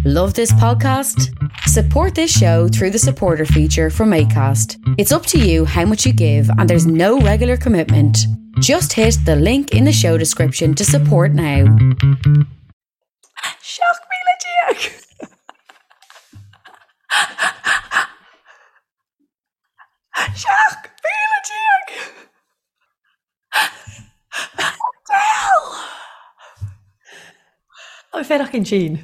Love this podcast? Support this show through the supporter feature from ACAST. It's up to you how much you give, and there's no regular commitment. Just hit the link in the show description to support now. 17,000! 17,000! Tá mé féineach ansin.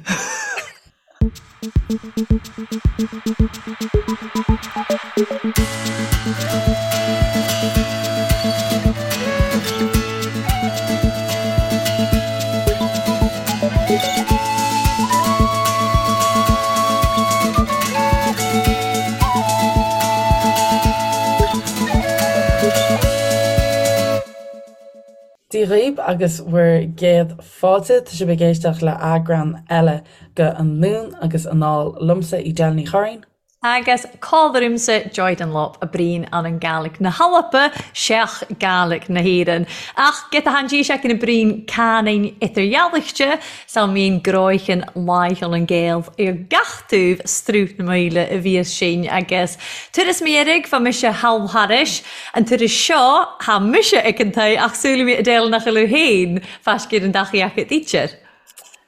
Dia dhaoibh agus bhur gcéad fáilte. Tá sibh ag éisteacht le eagrán eile de Anonn agus Anall liomsa, Edel Ní Churraoin. Agus còmhla rùmsa Joy Dunlop a bruidhinn ann an Gàidhlig na h-Alba seach Gàidhlig na h-Èireann. Ach giota than dithis a bruidhinn cànain eidirdhealaichte, 's am bhíonn gnoithean laicheil an Gael ar gach taobh Sruth na Maoile a bhíos sinn agus turas mo dheirg fá mise thall thairis an turas seo tha mise ag an tae ach súil mi Edel nach bhfuil féin faiscéir an dachaí aca d'ítear.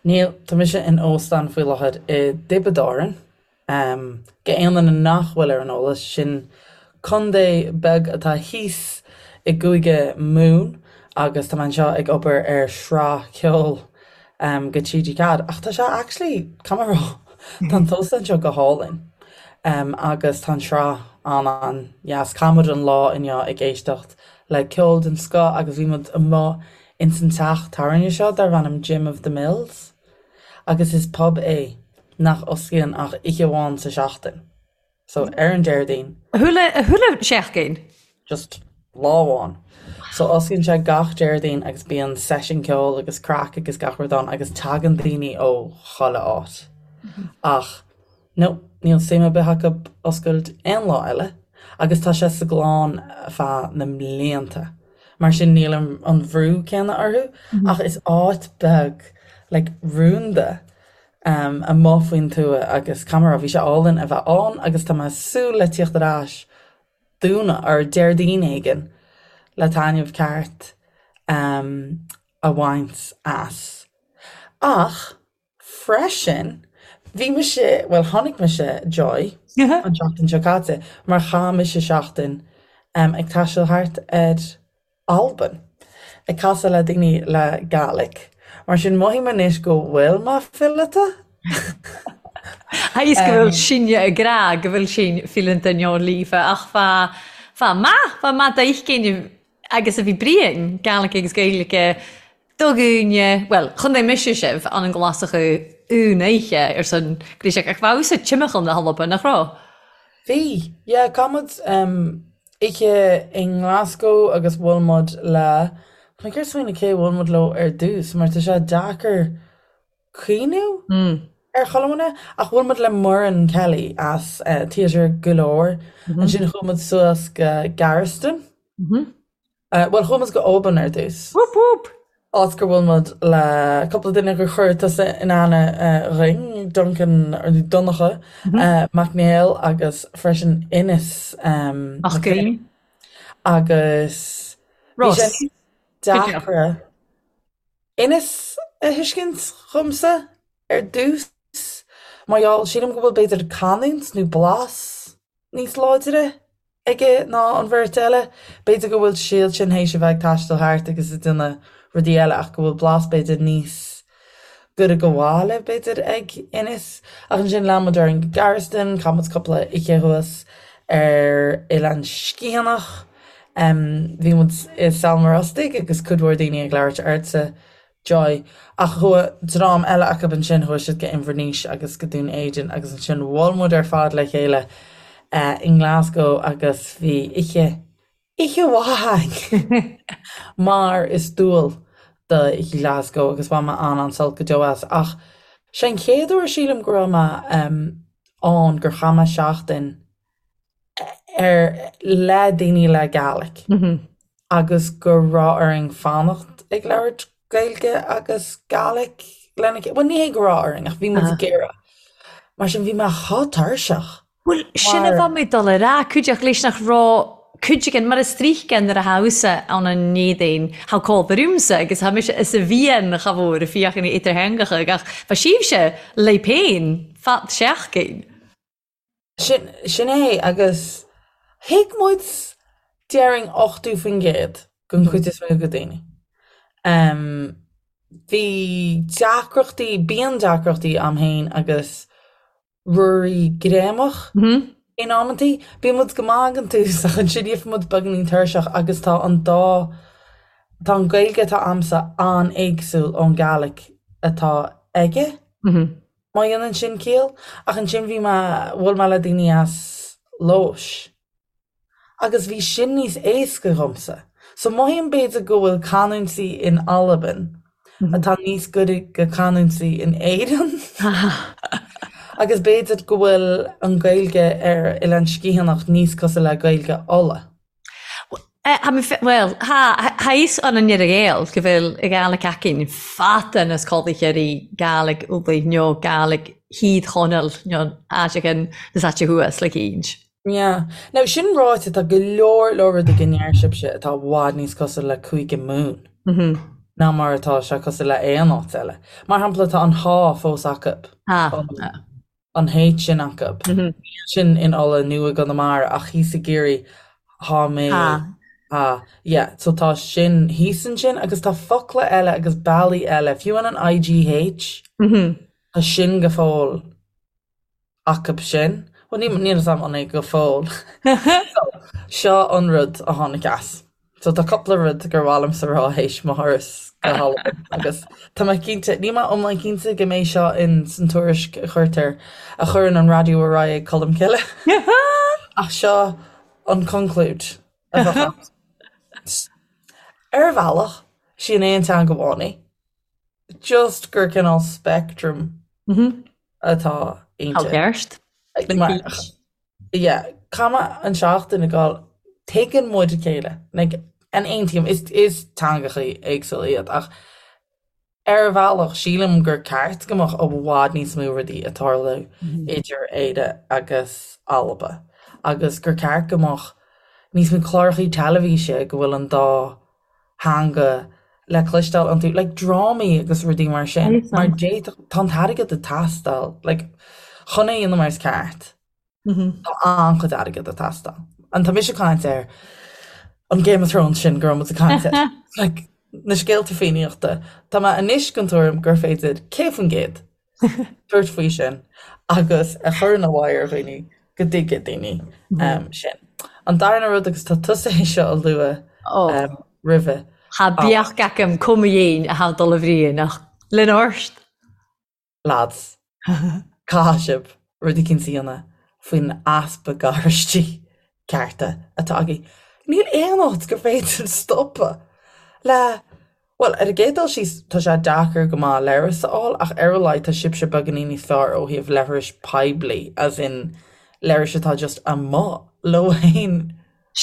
Níl, tá mise in óstán faoi láthair i dTiobraid Árann. Go aon duine nach bhfuil ar an eolas, sin contae beag atá thíos i gCúige Mumhan agus tá mé anseo ag obair ar shraith ceoil go TG4. Ach tá sé actually, caithfidh mé a rá, tá an t-óstán seo go hálainn agus tá an tsraith an-an-dheas. Chaith muid an lá inniu ag éisteacht le ceol den scoth agus bhí muid amuigh ins an teach tábhairne seo darb ainm Jim of the Mills. Agus is pub é nach osclaíonn ach oíche amháin sa seachtain. So ar an Déardaoin. Chuile, chuile sheachtain? Just lá amháin. So osclaíonn sé gach Déardaoin agus bíonn seisiún ceoil agus craic agus gach rud ann agus tagann daoine ó chuile áit. Ach no, níl suim ar bith acu oscailt aon lá eile agus tá sé sa gclann feadh na mblianta. Mar sin níl an bhrú céanna orthu ach is áit beag like rúnda amuigh faoin tuath agus caithfidh mé a rá bhí sé álainn a bheith ann agus tá mé ag súil le tíocht ar ais Domhnach or Déardaoin éigin le taitneamh ceart a bhaint as. Ach Freisin, bhí mise, bhuel tháinig mise, Joy, an tseachtain seo caite mar chaith mise seachtain ag taisteal thart ar Albain, ag casadh le daoine le Gàidhlig. Mar sin mothaím anois go bhfuil mé fileata. Is go bhfuil sinne ag rá go bhfuil sinn fileanta nó líofa ach fá fá maith, fá maith d'fheicinn agus a bhí bruidhinn, Gàidhlig agus Gaeilge Do dhuine, bhuel, chontae mise sibh, an an Glasach un oidhche ar son Gríseach, ach bheadh sa timcheall na hAlban, nach raibh? Bhí, yeah, chaith muid oíche i nGlasgow agus bhuail muid le, tá mé ag iarraidh smaoineamh cé a bhuail muid leo ar dtús mar tá sé deacair cuimhniú ar chuile dhuine, ach bhuail muid le Muireann Kelly as Theatre go leor, ansin chuaigh muid suas go Gearasdan. Bhuel, chuaigh muid go Oban ar dtús. Whoop whoop! Áit gur bhuail muid le cúpla duine gur chuir tusa in aithne dhuinn, Duncan, Donncha Mac Néill agus freisin Innes Mac Grianna. Agus bhí sé Ross. níos deacra Innes a thuiscint dhomsa ar dtús mar gheall, sílim go bhfuil b'fhéidir canúint nó blas níos láidre aige ná an bheirt eile. B'fhéidir go bhfuil siad sin théis a bheith ag taisteal thart agus ag déanamh rudaí eile ach go bhfuil blas b'fhéidir níos gaire go bhaile b'fhéidir ag Innes. Ach ansin lean muid orainn go Gearasdan, chaith muid cúpla oíche thuas ar Oileán Sgitheanach. Bhí muid i Sabhal Mòr Ostaig agus cuid mhór daoine ag labhairt ortsa Joy. Ach chuaigh dream eile acu ansin, chuaigh siad go Inbhir Nis agus go Dún Éideann agus ansin bhuail muid ar fad le chéile i nGlasgow agus bhí oíche, oíche mhaith againn mar is dual d'oíche Glasgow agus bhain mé an-an-sult go deo as. Ach sé an chéad uair sílim go raibh mé ann gur chaith mé seachtain ar le daoine le Gàidhlig agus go raibh orainn fanacht ag labhairt Gaeilge agus Gàidhlig lena chéile. Bhuel, ní hé go raibh orainn ach bhí muid ag iarraidh. Mar sin bhí mé chomh tuirseach. Bhuel, sin a bha mi dol a ràdh, cuideachd leis nach robh cuid againn, mar as tríocha nuair a tha thusa ann an Éadaoin, tha còmhla ormsa agus tha mise is a mhian cha mhór a fiachain idirtheangacha ach bha sibhse leibh féin fad seachtain. Sin, sin é agus thuig muid déarfainn 80% den chuid is mó de daoine. Bhí deacrachtaí, bíonn deacrachtaí a'm féin agus Ruairí greamach in amantaí. Bíonn muid go maith ag an tús ach ansin gheibheann muid beagáinín tuirseach agus tá an dá, tá an Ghaeilge atá a'msa an-éagsúil ón Gàidhlig atá aige, má dhéanann sin ciall. Ach ansin bhí mé, bhuail mé le daoine as Leodhais. Agus bhí sin níos éasca dhomsa. So mothaím b'fhéidir go bhfuil canúintí in Albain atá níos gaire go canúintí in Éirinn. Agus b'fhéidir go bhfuil an Ghaeilge ar Oileán Sgitheanach níos cosúil le Gaeilge Uladh. Bhuel, tha fhios ann an Ghael go bhfuil y Gàidhlig againn fada nas còmhla Gàidhlig Ulaidh nó Gàidhlig Thìr Chonaill nó áiteachain nas aite thuas le cínnt. Yeah. Now, sin ráite, tá go leor leor rudaí go ndeir sibhse atá i bhfad níos cosúil le Cúige Mumhan ná mar atá sé cosúil le aon áit eile. Mar shampla, tá an há fós acu. Há. An H sin acu. Níl sin in Uladh nó i gConamara ach thíos i gCiarraí, thá mé. Há. Há. Yeah. So tá sin thíos ansin agus tá focla eile agus bealaí eile, fiú an an IGH, tá sin go fóill. Acu sin. Bhuel, ní, níl a fhios agam an é go fóill. So, seo an rud a tháinig as. So tá cúpla rud gur mhaith liomsa rá théis mo thuras go hAlbain agus tá mé cinnte, níl mé iomlán cinnte go mbeidh seo in san tuairisc a chuirtear, a chuireann an raidió ar aghaidh ag Colmcille. Ach seo an conclúid a bheadh ann. Ar bhealach, sí an aon teanga amháin í. Just gur cineál spectrum atá inti. Ceart. Yeah, caithfidh mé an seachtain ag gabháil, tuigeann muid a chéile, like, an aontaím, is, is teangachaí éagsúla iad ach ar bhealach sílim gur ceart go mbeadh i bhfad níos mó rudaí ag tarlú idir Éire agus Alba agus gur ceart go mbeadh níos mó clárachaí teilifíse go bhfuil an dá theanga le cloisteáil iontu, like drámaí agus rudaí mar sin, mar d'fhéadfadh, tá an t-airgead ag teastáil, like chun é a dhéanamh mar is ceart, tá an-chuid airgead ag teastáil. And tá mise ag caint ar an Game of Thrones sin go raibh muid ag caint air, like na scéalta Fiannaíochta, tá mé anois den tuairim gur féidir 100% tabhairt faoi sin agus a chur ina bhfadhb ar dhaoine go dtuigfidh daoine sin. An darna rud, agus tá tusa é seo a lua roimhe. Tha beag agam cuma dhein a tha dol a bhriain ach linn ort. Lads, caithfidh sibh rud eicínt a dhéanamh faoin easpa garáistí cearta atá agaibh. Níl aon áit gur féidir stopadh le Bhuel, ar an gcéad dul síos, tá sé deacair go maith leithreas a fháil, ach ar a laghad tá sibhse beagáinín níos fearr ó thaobh leithris poiblí, as in leithris atá just amuigh leo féin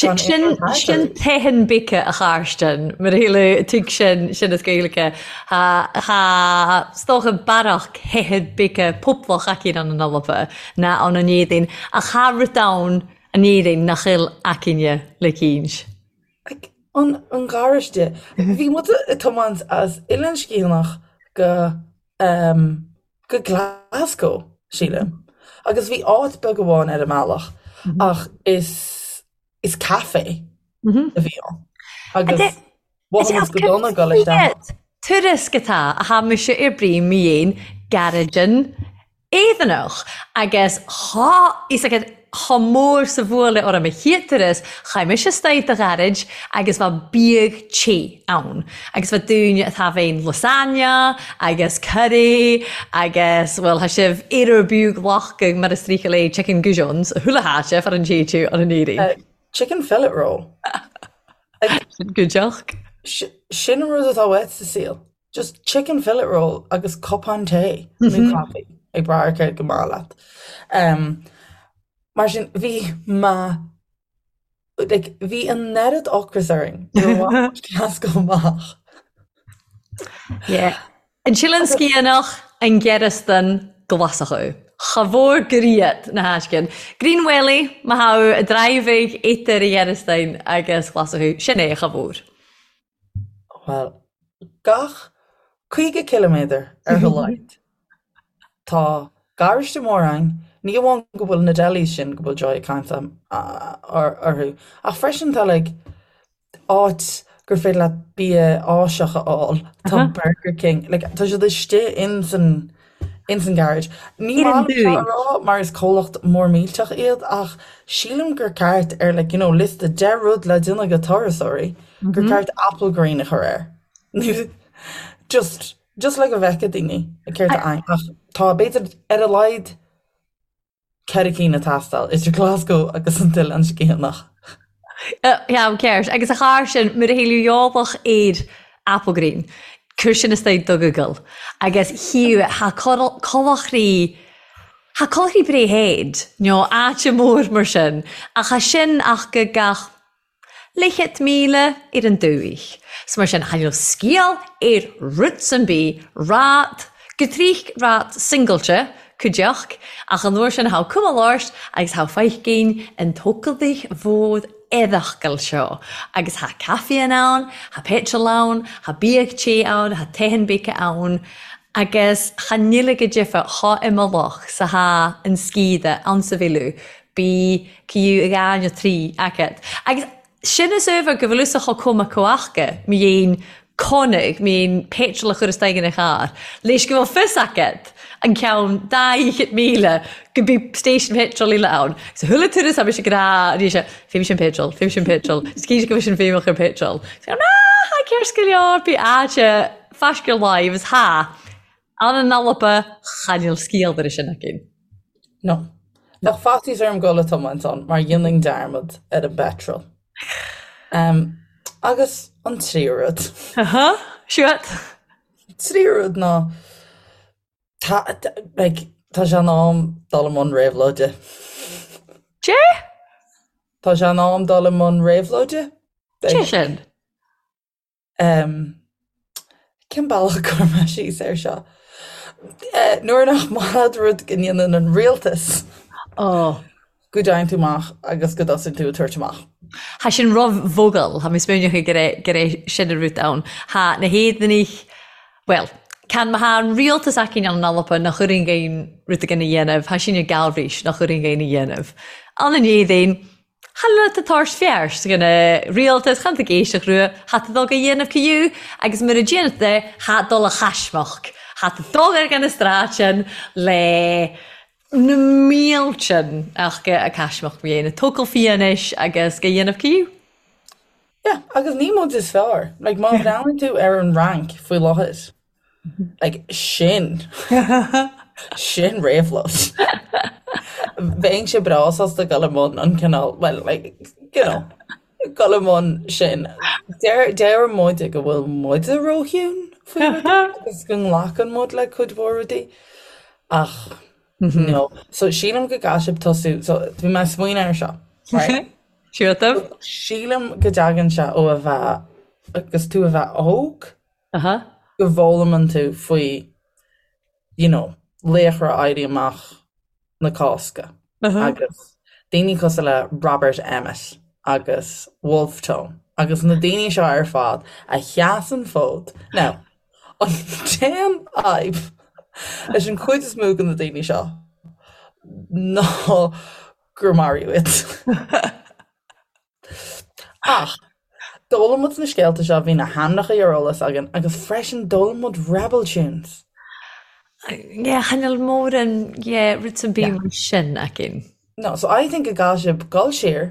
gan aon rud thart Sin orthu. teitheann bice a Charstin, mar a shíleadh tuig sin sin as Gaeilge. Tha tha 's dócha bearach theithead bice poblach aicinn ann an Alba ná ann an Éadaoin, ach tha rud ann an Éirinn nach eil aicinne le cinnt. Like, an, an garáiste. Bhí muid ag tiomáint as Oileán Sgitheanach go, um, go Glasgow, sílim. Agus bhí áit beag amháin ar an mbealach ach is, is café a bhí ann. Agus mhothaigh muid go dona ag dul isteach. Tuairisc atá a tha mise ar brí mi dhein gairidin Éireannach agus thá fhios agat chomh mór 's a bhuaile orm a chéad turas, chaith mise istoigh do ghairid agus bha biadh te ann agus bha daoine atá bheinn lasagna agus curry agus bhuel tha sibh aoradh biodh glacadh mar is tríocha lé chicken goujons a chuile háite far an té tú an an Éirinn. Chicken fillet roll. Sin gudeach. Sin an rud atá uait sa saol. Just chicken fillet roll agus cupán tae nó caife ag brath ar céard go maith leat. Um, mar sin bhí ma like, bhí an oiread ocras orainn Glasgow amach. Yeah. An tSileann Sgitheanach, an Gearasdan, Glaschú. Cha mhór griat na haiscin. Green Welly, ma tha a driving idir a Ghearastain agus Ghlaschú. Sin é, cha mhór. Bhuel, gach 50 ciliméadar ar a laghad, tá garáiste mór ann, ní amháin go bhfuil na delis sin go bhfuil Joy ag caint orthu, ach freisin tá like áit gur féidir leat bia Áiseach a fháil, tá Burger King, like tá siad istigh ins an ins an garage. Ní Ar an maith liom seo a dúin. rá mar is comhlacht mór millteach iad ach sílim gur ceart ar like you know liosta 10 rud le déanamh go turasóirí gur ceart Applegreen a chur air. Nó just just le go bhfeicfidh daoine céard atá ann ach tá b'fhéidir ar a laghad 4 cinn ag teastáil idir Glasgow agus an tOileán Sciathanach. Ceann ceart. Agus a char sin, mura shíleadh eolach ar Applegreen, cuir sin istoigh do Google agus chíu tha colachraí tha colachraí Bray Head nó áite mór mar sin ach tha sin ach go gach Leathchéad míle ar an dúich. 'S mar sin, tha níl sciáil ar rud san bith, rad, go trích rad singailte, cuideachd, ach an uair sin tha cuma láirt agus tha feicinn an tócaldaich mhór eadachcail seo, agus tha caife ann, tha petrol ann, tha biadh te ann, tha teithin beice ann, agus cha nil go deimhe tha imeallach sa tha an sciath ann sa bhfilleadh, Bí cú a dhá nó trí agat. Agus sin is uabhar go bhfuil fhios acu chomh maith comhaca, mi dhéin conadh, mi dhéin petrol a chur isteach ina charr, leis go bhfuil fios agat an ceann 200,000 go bí station petrol eile ann. So chuile turas tá mise ag rá arís, fé sin petrol, fé sin petrol, is cinnte go bhfuil sin feidhmeach ar petrol. So, ná, tha ceart go leor, bí áite faisceadh láimh is tha. Ann an Alba, cha níl sciáil ar sin againn. No. Bheadh faitíos orm dul ag tiomáint ann mar dhéanfainn dearmad ar an bpeitreal. Um, agus an tríú rud. Aha, siúd. Tríú rud ná tá, like, tá sé in am dul i mbun réabhlóide. Dé? Tá sé in am dul i mbun réabhlóide. Dé sin? Em, cén bealach a gcuirfidh mé síos air seo? Eh, nuair nach maith leat rud go ndéanann an rialtas, Oh. go dtéann tú amach agus go dtosaíonn tú ag tabhairt amach. Tha sin ro-mhogall, tha mi smaoineachadh gur e gur e sin a rud ann. Tha na h-Éireannaich, bhuel, can ma tha an rialtas againn ann an Alba nach chuireann aon rud againn a dhéanamh, tha sin ag Galbhraois nach chuireann aon a dhéanamh. Ann an Éirinn, Chan eil tu tabhairt fearst dhan a' rialtas, chan tú ag éisteacht rua, tha tú dul a dhéanamh ciú agus mura déanann tú é, tha dul a chaismeachd, tha tú dul ar an stráid le na míltean ach go a caismeachd mo dhéanamh tógáil fianaise agus go dhéanamh ciú. Yeah, agus ní muid is fearr. Like, má bhreathnaíonn tú ar an Fhrainc faoi láthair, Like, sin. Sin réabhlóid. Bheinnse breá sásta dul i mbun an cineál, well, like, you know, dul i mbun sin. Deir, deir muide go bhfuil muide róchiúin faoi rudaí agus go nglacann muid le cuid mhór rudaí. Ach, no. So, sílim go gcaithfidh sibh tosú, so, bhí mé ag smaoineamh air seo, right? Siútaim. Sílim go dtagann sé ó a bheith, agus tú a bheith óg, Aha. go bhfoghlaimeann tú faoi you know laochra Éirí Amach na Cásca agus daoine cosúil le Robert Emmet agus Wolfe Tone agus na daoine seo ar fad a sheas an fód. Now, an t-aon fhadhb leis an chuid is mó de na daoine seo ná gur maraíodh iad. Ach d'fhoghlaim muid na scéalta seo, bhí na hainmneacha ar eolas againn agus freisin d'fhoghlaim muid rebel tunes. Yeah, chan eil mòran, yeah, rud am bith mar sin againn. No, so I think go gcaithfidh sibh dul siar,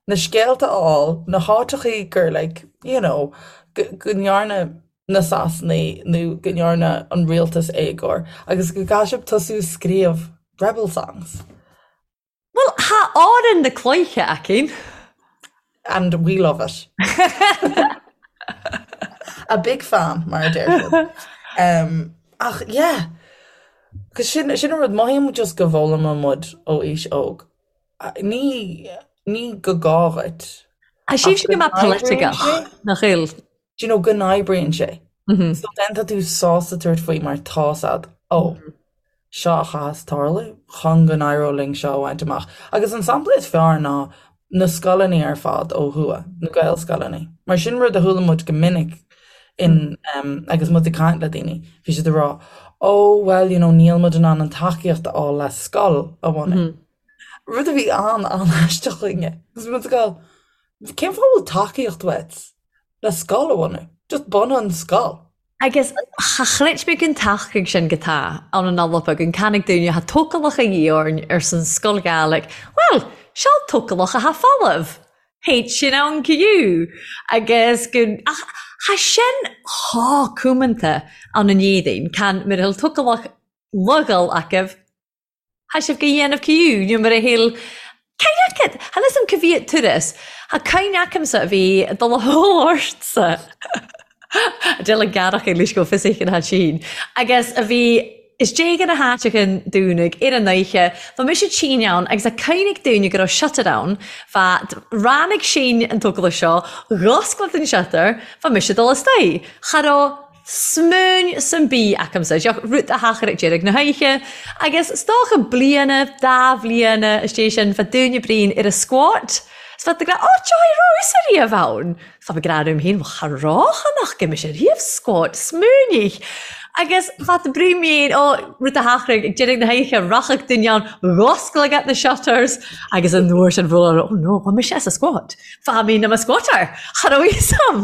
na scéalta a fháil, na háiteachaí gur like, you know, go ndearna na Sasanaigh nó go ndearna an rialtas éagóir agus go gcaithfidh sibh tosú ag scríobh rebel songs. Bhuel, tha Òran na Cloiche againn. And we love it. A big fan, mar a deir siad. Um, ach, yeah, 'cause sin, sin an rud, mothaím just go bhfoghlaimeann muid ó aois óg. Ní, ní go gá dhuit. Tá sibhse go maith polaitigeach, nach eil? Do you know, go n-oibríonn sé. So then tá tú sásta tabhairt faoi mar tá's a'd, oh, seo a chaithfeas tarlú chun go n-éireodh linn seo a bhaint amach. Agus an sampla is fearr ná na scoileanna ar fad ó thuaidh, na Gaelscoileanna. Mar sin rud a chuala muid go minic in agus muid ag caint le daoine, bhí siad ag rá, oh well you know níl muid in ann an tacaíocht a fháil le scoil a bhunú. Rud a bhí an-an-aisteach chugainne. Agus muid ag gabháil, cén fáth a bhfuil tacaíocht uait le scoil a bhunú? Just bunaigh an scoil. Agus cha chreid mé gun tacaigh sin go tá ann an Alba gun canaigh dúinne tha tócalach a dhíth orainn arsan Sgoil Ghàidhlig. Bhuel, seol tócalach a tha folamh. Théid sin ann go agus gun ach tha sin chomh cumanta ann an Éadaoin, can mura bhfuil tócalach logal acu, Tha sibh go dhéanamh ciú nó mar a shíl Cén aicid? Tha fhios a'm ca bhí turas. Tha cuimhne acamsa a bhí ag dul a hól ortsa. Deil an gearrach ag leis go fios éigin tha sín. Agus a bhí is déag ina háiteachan dúnaigh ar an oíche. Bha mise tinn ann agus tha cuimhne ag daoine go raibh shutter ann. Bha ráinig sín an tógála seo, dh'oscailt an shutter, bha mise ag dul istoigh. Cha raibh Smaoin san bí acamsa, deoch rud a thachair ag deireadh na hoíche, agus 's dócha bliana, dá bhliana istigh sin, bheadh dúine Brian ar a squat, 's bheadh ag rá, Ó, Joy Rose ariamh ann! 's bheadh ag rá liom féin, Bhuel, cha raibh nach gcuimse riamh squat, smaoinigh! Agus bheadh Brian féin, ó, rud a thachair ag deireadh na hoíche, rachadh duine ann, dh'oscail agat na shutters, agus an uair sin bhuail, oh no, bha mise as a squat, bha mé na mo squatter, cha raibh fhios a'm!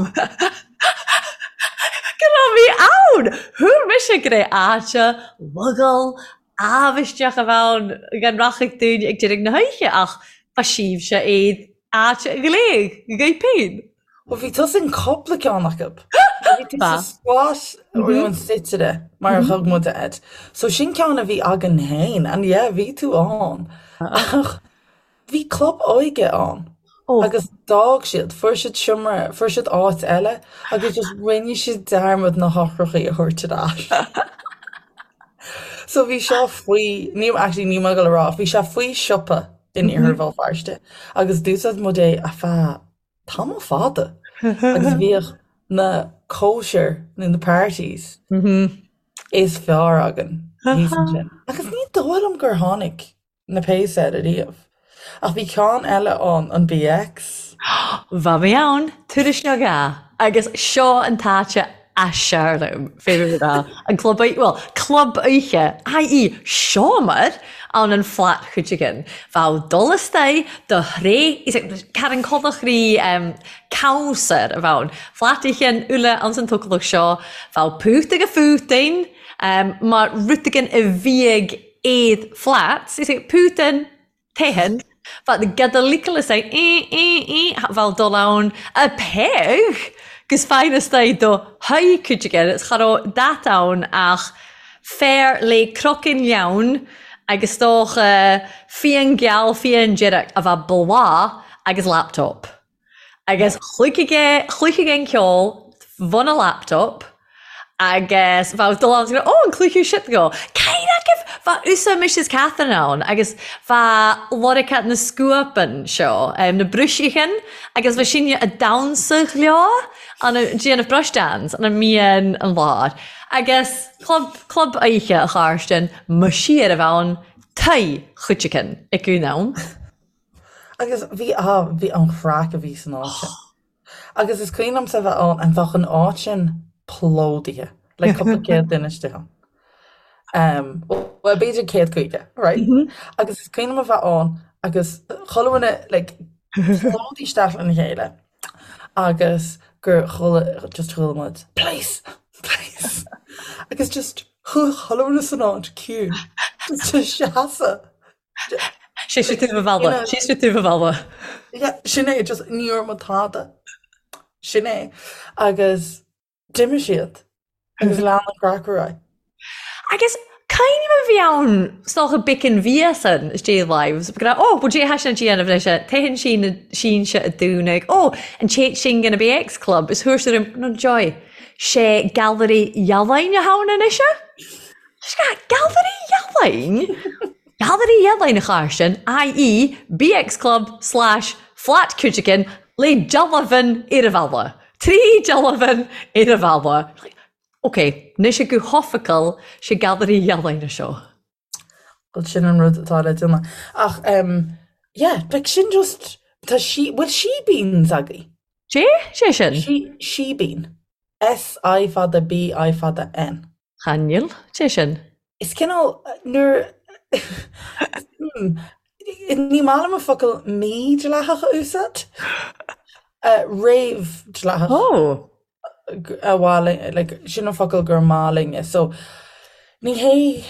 Go raibh mé ann! Thuar mise go raibh áite lugal amhaisteach a bheith ann gan rachadh dúinn ag deireadh na hoíche ach ba síbhse iad áit ghléig dhaoibh féin. Bhuel bhí tusa in cúpla ceann acu. Bhí tú sa squat nó an suitire mar a thug muid air. So sin ceann a bhí againn féin and yeah bhí tú ann. Ach Bhí club óige ann agus d'fhág siad, fuair siad seomra, fuair siad áit eile agus just rinne siad dearmad na heochrachaí a thabhairt ar ais. So bhí seo faoi, ní, actually níl mé ag dul a rá, bhí sé faoi siopa in Iarthar Bhéal Feirste agus d'úsáid muid é ar feadh tamall fada agus bhíodh na cóisir nó na parties is fearr againn thíos ansin. Agus ní dóigh liom gur tháinig na péas air ariamh. Ach bhí ceann eile ann, an BX. Bha mé ann, turas nó dhá, agus seo an t-áit as fearr liom, féidir le rá, an club oíche, bhuel, club oíche, i.e. seomar ann an flat chuideigin. Bheadh dul istoigh do thré, Karen Codach rí cabhsar a bheadh ann. Flat oíche an uile anns an tócalach seo, bheadh pút ag a phútain, mar rud éigin a bhíodh iad flats, is é Putin, Tehan, but the Gadalicalus é eh eh eh bheadh dul ann a peig gus fine istigh do haghaidh cuid aige is cha raibh dat ann ach fear le croiceann leann agus dócha fíon geal fíon dearg a bheadh bláth agus laptop. Agus chluichfidh é, chluichfidh é an ceol bhun a laptop agus bheadh dul ann is go, oh, an cluichú shit go. Cén agaibh? Bheadh usa Mrs Catherine ann agus bheadh lorica na scuapan seo, na bruisichin agus bheadh sinne a damhsa leo an déanamh brush dance an mbíonn an lár. Agus club, club oíche a Chairstin, mo siar a bheadh ann, tae chuideachan ag an am. Agus bhí, ah, bhí an chraic a bhí san áit sin. Agus is cuimhin liomsa a bheith ann and bheadh an áit sin plódaithe, like cúpla céad duine istigh ann. Um, well, b'fhéidir 150, right? Agus is cuimhin liom a bheith ann agus chuile dhuine, like, plódaithe isteach lena chéile agus gur chuala, just chuala muid, Police! Police! Agus just chuaigh chuile dhuine san áit ciúin, just ag seasamh. Sé sé tú a bhalla, sé sé tú a bhalla. Sin é, just ní raibh muid tada. Sin é. Agus d'imigh siad agus lean an craic ar aghaidh. Agus cuimhním a bhí ann 's dócha bicin bhíosan istigh live, go raibh, ó, bhuel, dé sin déanamh leis a téann sí na sínse a dúnadh, ó, an téit sin gona BX Club, is thuairt orm, no joy, sé Gallery Ealaíne a thabhain anois é? Gallery Ealaíne? Gallery Ealaíne a Chairstin, i.e. BX Club slash Flat Cuideachtain le dealbhan ar a bhalla. Trí dealbhan ar a bhalla. Ok, anois go hoifigiúil sé Gallery Ealaíne seo. Bhuel sin an rud atá le déanamh. Ach em yeah, like sin just tá sí bhfuil sheebeens agaibh? Dé? Sé sin? Sí sheebeen. S I fada B I fada N. Chan eil. Dé sin? Is cineál nuair hmm, ní maith liom an focal mídhleathach a úsáid. Uh, réamhdhleathach. Oh. a mhaith linn, like, sin an focal gur maith linne. So, ní hé,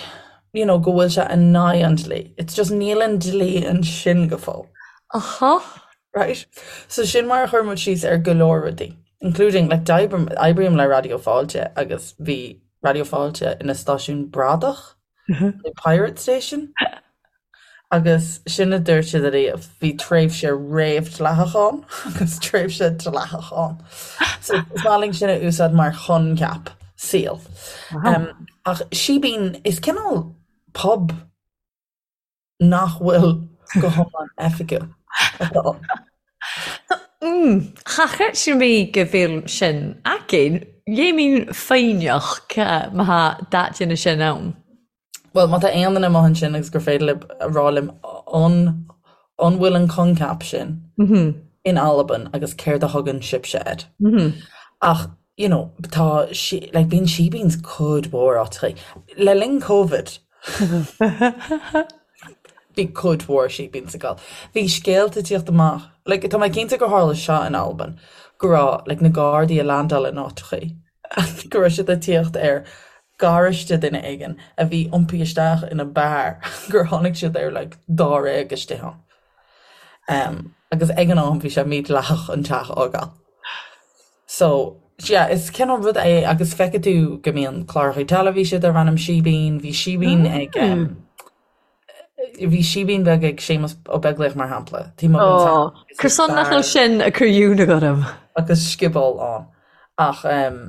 you know, go bhfuil sé in aghaidh an dlí. It's just níl an dlí ansin go fóill. Aha. Right? So sin mar a chuir muid síos ar go leor rudaí, including, like, d'oibrím, oibrím le Raidió Fáilte agus bhí Raidió Fáilte ina stáisiún bradach. The Pirate Station. Agus sin a dúirt siad ariamh, bhí tréimhse réamhdhleathach ann agus tréimhse dleathach ann. So is maith linn sin a úsáid mar choincheap saoil. Um, ach síbín, is cineál pub nach bhfuil go hiomlán oifigiúil atá ann. Cha chreid mé go bhfuil sin againn. Dheimhin foighneach má tha daidine sin ann. Bhuel, má tá aon duine amuigh ansin agus gur féidir libh a rá liom an an bhfuil an coincheap sin in Albain agus céard a thugann sibhse air. Ach, you know, tá sí, like, bíonn sheebeens cuid mhór áiteachaí. Le linn Covid, Bhí cuid mhór sheebeens ag gabháil. Bhí scéalta ag tíocht amach, like, tá mé cinnte gur tharla seo in Albain, go raibh, like, na Gardaí ag landáil in áiteachaí, go raibh siad ag tíocht ar garáiste duine éigin a bhí iompaithe isteach ina beár, gur tháinig siad ar, like, dáréag istigh ann. Um, agus ag an am bhí sé mídhleathach an teach a fhágáil. So, yeah, is cineál rud é agus feicfidh tú go mbíonn cláracha teilifíse darb ainm Síbín, bhí síbín ag um, bhí síbín beag ag Séamus Ó Beaglaoich mar shampla. Taobh amuigh den teach agus Cur son nach bhfuil sin ag cur ionadh orm. Agus scioból ann. Ach um,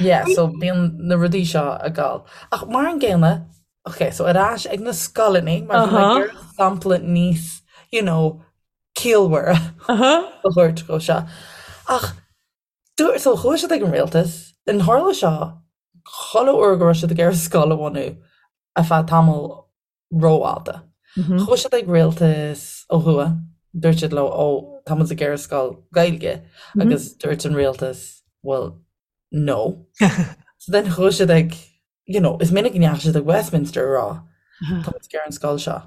yeah, so bíonn na rudaí seo ag gabháil. Ach mar an gcéanna, ok, so ar ais ag na scoileanna, mar bhí mé ag iarraidh sampla níos, you know, ciallmhaire a thabhairt dhó seo. Ach dúirt, so chuaigh siad ag an rialtas, an tharla seo chuile uair go raibh siad ag iarraidh scoil a bhunú ar feadh tamall rófhada. Chuaigh siad ag rialtas ó thuaidh, dúirt siad leo, ó, tá muid ag iarraidh scoil Gaeilge, agus dúirt an rialtas, well, no. So then chuaigh siad ag you know, is minic go ndeachaigh siad ag Westminster a rá, tá muid ag iarraidh an scoil seo,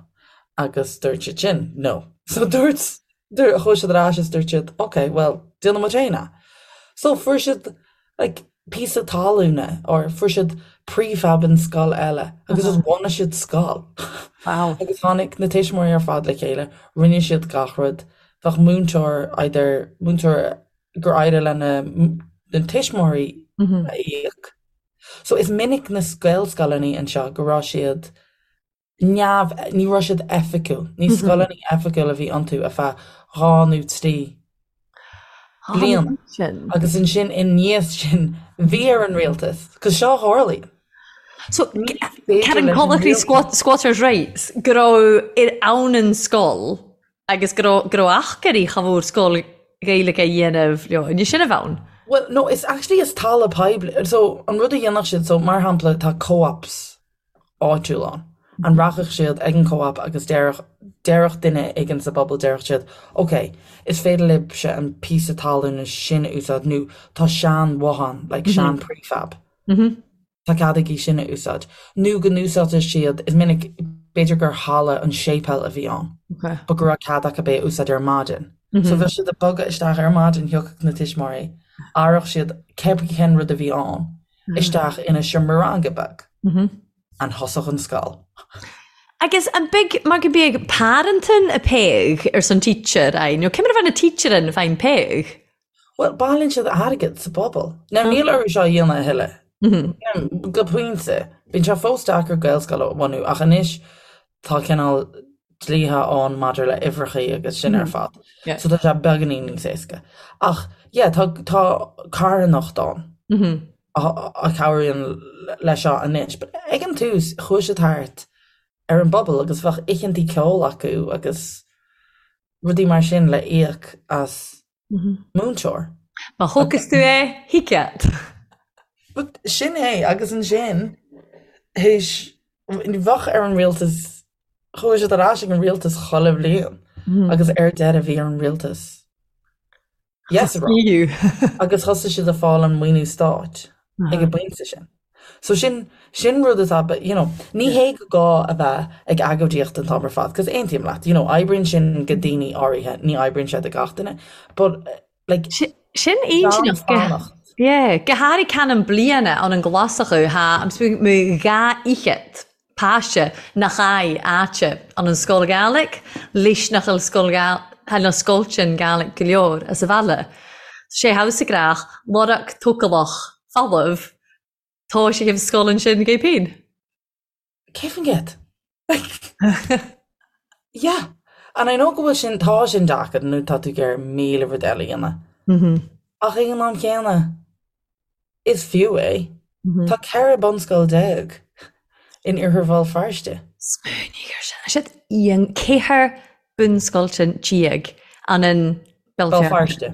agus dúirt siad sin, no. So dúirt, dúirt, chuaigh siad ar ais is dúirt siad, ok, well, déanfaidh muid féin é. So fuair siad, like, píosa talúna, or fuair siad prefab in scoil eile, agus just bhunaigh siad scoil. Wow. Agus tháinig na tuismitheoirí ar fad le chéile, rinne siad gach rud, bheadh múinteoir, either múinteoir gur éirigh le na, na tuismitheoirí a íoc, So is minic na Gaelscoileanna anseo go raibh siad neamh, ní raibh siad oifigiúil, ní scoileanna oifigiúil a bhí iontu ar feadh 2 nó 3 bliana. Agus ansin i ndiaidh sin bhí ar an rialtas, cos seo a tharlaíonn. So Karen Conachry squatters rights go raibh ar ann an scoil Agus go raibh, go raibh achairí cha mhór scoil Ghaeilge a dhéanamh leo, an é sin a bheadh ann? Well, no, is actually is talamh poiblí, so an rud a dhéanfadh siad, so mar shampla tá co-ops áitiúil ann, an rachadh siad ag an co-op agus déarfadh, déarfadh duine éigin sa bpobal, déarfadh siad, ok, is féidir libhse an píosa talúna sin a úsáid nó tá sean-bhothán, like sean prefab. Tá cead agaibh sin a úsáid. Nó go n-úsáidfeadh siad, is minic, b'fhéidir gur halla an séipéal a bhí ann, but go raibh cead acu é a úsáid ar maidin. So bheadh siad ag bogadh isteach ar maidin, thiocfadh na tuismitheoirí, athródh siad cibé cén rud a bhí ann isteach ina seomra ranga beag and thosódh an scoil. Agus an big, mar go bíodh parenting a péag ar son teacher, aye, nó cé mar a bheith na teacher in fine péag? Bhuel, bailíonn siad airgead sa bpobal. Now, níl orthu seo a dhéanamh a thuilleadh. Go pointe. Bíonn sé fós deacair Gaelscoil a bhunú, ach anois tá cineál dlíthe ann maidir le uimhreachaí agus sin ar fad. So tá sé beagáinín níos éasca. Ach, yeah, tá, tá carthanacht ann a chabhraíonn leis seo anois. But ag an tús, chuaigh siad thart ar an bpobal agus bheadh oícheantaí ceoil acu agus rudaí mar sin le íoc as múinteoir. Má thógfas tú é, thig leat. But sin é, agus ansin, théis, bheadh ar an rialtas. Chuaigh siad ar ais ag an rialtas chuile bhliain agus ar deireadh bhí ar an rialtas yes a rá agus thosaigh siad ag fáil an maoiniú stáit ag an bpointe sin. So sin sin rud atá you know ní hé go gá a bheith ag agóidíocht an t-am ar fad cos aontaím leat you know oibríonn sin go daoine áirithe ní oibríonn sé do gach duine but like Sin gan fanacht. Yeah, go háirithe can bliana ann an Glasachú tha am mo dha fhichead páiste nach aghaidh áite an an scoil Gàidhlig, leis nach bhfuil scoil Gàidhlig na scoilteann Gàidhlig go leor as a bhaile. Sé thabhsa grách, lorg tócalach folamh, tá sé thaobh scoil ansin gé pín. 100%. Yeah. And I know go bhfuil sin, tá sin deacair nó tá tú ag iarraidh 1000 rud eile a dhéanamh. Ach ag an am chéanna, is fiú é. Tá 14 bunscoil in Iarthar Bhéal Feirste. Smaoinigh ar sin. Siad an 14 bunscoiltean an in Béal Feirste.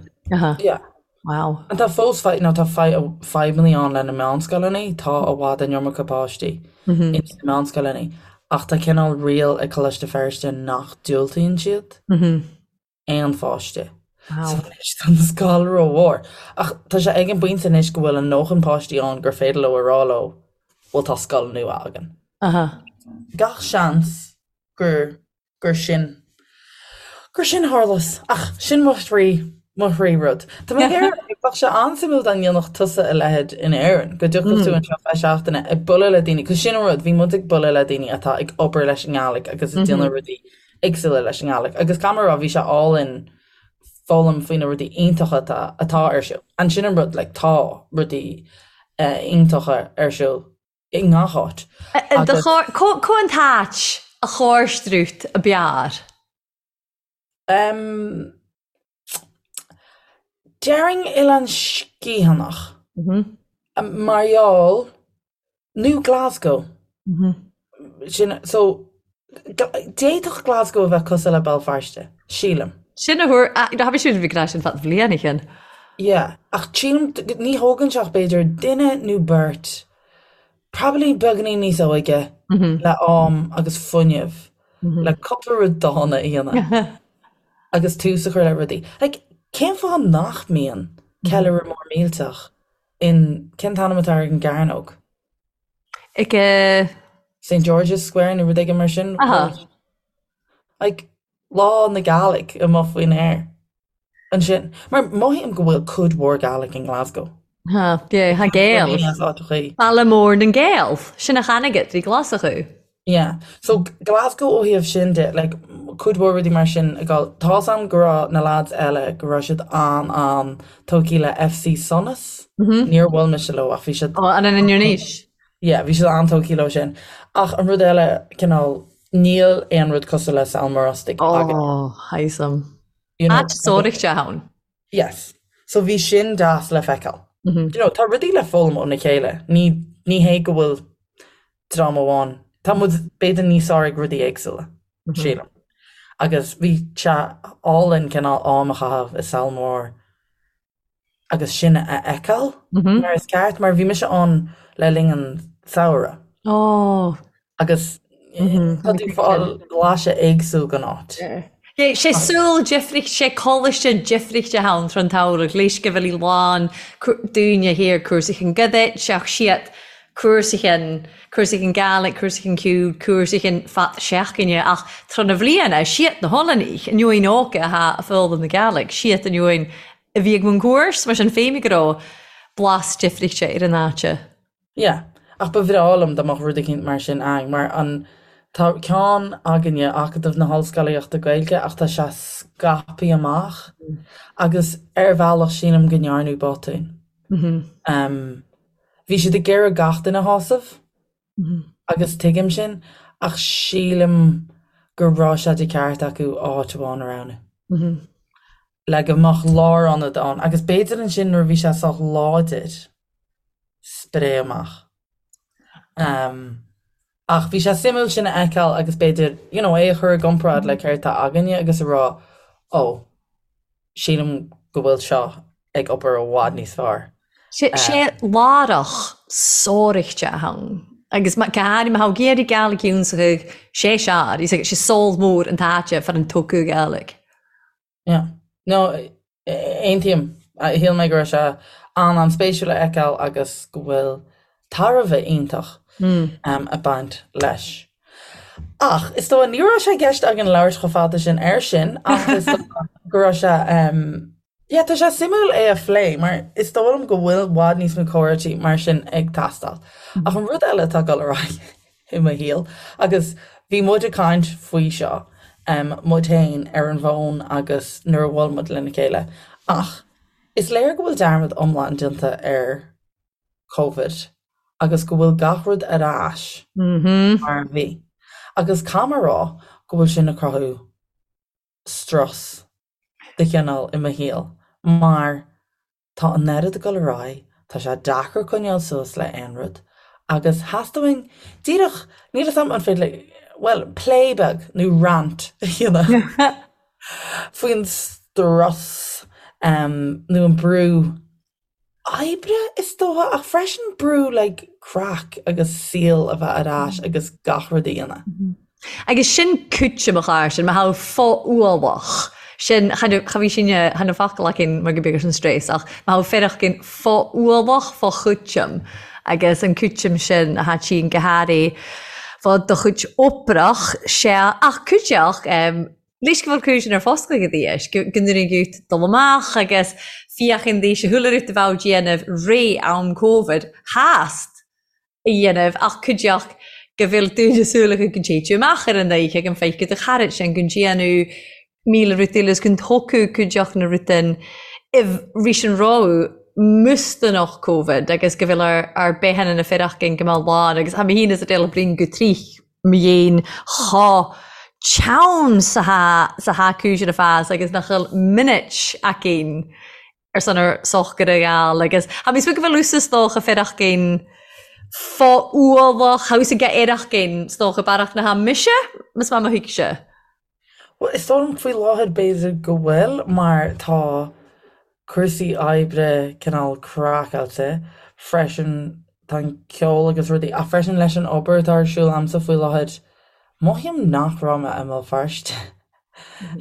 Yeah. Wow. And tá fós fadhb, nó tá fadhbanna ann le na meánscoileanna, tá i bhfad an iomarca páistí ins na meánscoileanna, ach tá cineál riail ag Coláiste Feirste nach diúltaíonn siad aon pháiste. So anois tá an scoil rómhór. Ach tá sé ag an bpointe anois go bhfuil a ndóthain páistí ann gur féidir leo a rá leo, bhuel tá scoil nua againn. Gach seans gur gur sin, gur sin a tharlós. Ach sin mo thrí, mo thrí rud. Tá mé ag iarraidh, bheadh sé an-suimiúil dá ndéanfadh tusa a leithéid in Éirinn, go dtiocfadh tú anseo feadh seachtaine ag bualadh le daoine, 'cause sin an rud, bhí muid ag bualadh le daoine atá ag obair leis an nGàidhlig agus ag déanamh rudaí éagsúla leis an nGàidhlig. Agus caithfidh mé a rá, bhí sé álainn foghlaim faoi na rudaí iontacha atá, atá ar siúl. And sin an rud, like, tá rudaí iontacha ar siúl i ngach áit. Agus. Cá an t-áit a chóirstrút a b'fhearr? Déarfainn Oileán Sgitheanach. Mar gheall, nó Glasgow. Sin, so, d'fhéadfadh Glasgow a bheith cosúil le Béal Feirste, sílim. Sin a thuar, tha mi siúd a bhith ag ràdh sin fad bhliain a chinn. Yeah, ach sílim, ní thógann sé ach b'fhéidir duine nó beirt, probably beagáinín níos óige, le am agus fuinneamh le cúpla rud dána a dhéanamh agus tús a chur le rudaí. Like, cén fáth nach mbíonn ceiliúradh mór millteach in, cén t-ainm atá ar an gcearnóg? Ag eh. St George's Square nó rud éigin mar sin. Aha. Like, Lá na Gàidhlig amuigh faoin aer ansin. Mar mothaím go bhfuil cuid mhór Gàidhlig in Glasgow. Ha, yeah, tha Gael. Baile mór nan Gael. Sin a chanagat ri Glaschú. Yeah. So Glasgow ó thaobh sin de, like, cuid mhór rudaí mar sin ag dul. Tá's a'm go raibh na lads eile, go raibh siad an-an-tógtha le FC Sonas. Níor bhuail mise leo ach bhí siad. Ó, an in Innis? Yeah, bhí siad an-tógtha leo sin. Ach an rud eile, cineál, níl aon rud cosúil le Sabhal Mòr Ostaig againn. Ó, tha 'fhios a'm. You know, Áit sóireachta ann. Yes. So bhí sin deas le feiceáil. You know, tá rudaí le foghlaim óna chéile. Ní, ní hé go bhfuil dream amháin, tá muid b'fhéidir níos fearr ag rudaí éagsúla, sílim. Agus bhí sé álainn cineál am a chaitheamh i Sabhal Mòr agus sin a fheiceáil mar is ceart, mar bhí mise ann le linn an samhradh. Ó. Agus tá tú ag fáil blaiseadh éagsúil den áit. Sé saol difricht, sé coláiste difrichte ann tron tsamhradh, leis go bhfuil í lán daoine thiar cúrsaí chun goidit, seach siad cúrsaí chun, cúrsaí chun Gàidhlig, cúrsaí chun ceoil, cúrsaí chun fad seachtaine, ach tron na bhliana, siad na hOileánaigh, an uain óga atá ag foghlaim na Gàidhlig, siad an uain a bhí ag mun cúrs, mar sin féin go raibh blas difrichte ar an áite. Yeah. Ach ba bhreá liom dá mbeadh rud eicínt mar sin againn, mar an, tá ceann againne, Acadamh na hOllscolaíochta Gaeilge, ach tá sé scaipthe amach agus ar bhealach sílim go ndearnadh botún. Bhí siad ag iarraidh gach duine a shásamh agus tuigim sin, ach sílim go raibh sé de cheart acu áit amháin a roghnú. Le go mbeadh lárionad ann agus b'fhéidir ansin nuair a bhí sé sách láidir, spréadh amach. Ach bhí sé suimiúil sin a fheiceáil agus b'fhéidir, you know, é a chur i gcomparáid le céard atá againne agus a rá, oh, sílim go bhfuil seo ag obair i bhfad níos fearr. Sé lárach sóireachta ann. Agus go háirithe má thá iarraidh Gàidhlig ionnsachaidh sé sear, is sé saol mór an t-áite far an tocadh Gàidhlig. Yeah. No, aontaím. Shíl mé go raibh sé an-an-spéisiúil a fheiceáil agus go bhfuil tairbhe iontach ag baint leis. Ach is dóigh, ní raibh sé i gceist againn labhairt chomh fada sin air sin ach is dóigh go raibh sé Yeah, tá sé suimiúil é a phlé mar is dóigh liom go bhfuil i bhfad níos mó comhráití mar sin ag teastáil. Ach an rud eile atá ag dul ar aghaidh i mo shaol, agus bhí muid ag caint faoi seo, muid féin ar an bhfón agus nuair a bhuail muid lena chéile, ach is léir go bhfuil dearmad iomlán déanta ar Covid agus go bhfuil gach rud ar ais mar a bhí. Agus caithfidh mé a rá go bhfuil sin ag cruthú strus de chineál i mo shaol mar tá an oiread ag dul ar aghaidh, tá sé deacair coinneáil suas le aon rud agus theastaigh uainn díreach, níl 'fhios a'm an féidir le, bhuel, plé beag nó rant a dhéanamh faoin strus nó an brú oibre is dócha ach freisin brú like craic agus saol a bheith ar ais agus gach rud a dhéanamh. Agus sin cúiteamh a chara sin, mar tha fo-ualach, sin, cha bhí sin, chan eil focal againn mar gu beag an stress, ach mar tha fearacht fo-ualach, fo-chúiteamh, agus an cúiteamh sin a tha tinn go hairí fo do chuid oibrach, sea, ach cúiteach, Leis go bhfuil cúis ar foscadh ag aois, go ndúineann gut dul amach agus féachaint d'aois a chuala rud a bheadh déanamh ré am Covid theast a dhéanamh ach cuideachd go bhfuil dúine súileacha go dtéid tú amach ar an oíche go bhfeicfidh do charaid sin go ndéanadh 1000 rud eile is go dtógfadh cuideachd na rudain i rís an rogha mustanach Covid agus go bhfuil ar ar beithe na fearachgain go mbeadh lán agus tá mé féin is a déala brín go trích mo dhéin chomh teann 's atá 's atá cúis ar a fás agus nach bhfuil minute againn ar son ar sochar a ghabháil agus tha mi 's go bhfuil thusa 's dócha fearachgain fo-ualach, tha thusa ag éireachgain 's dócha bearach na tha mise, mas maith mo thuigse. Bhuel, is dóigh liom faoi láthair b'fhéidir go bhfuil mar tá cúrsaí oibre cineál craiceáilte freisin, tá an ceol agus rudaí ach freisin leis an obair atá ar siúl a'msa faoi láthair, mothaím nach raibh mé i mBéal Feirste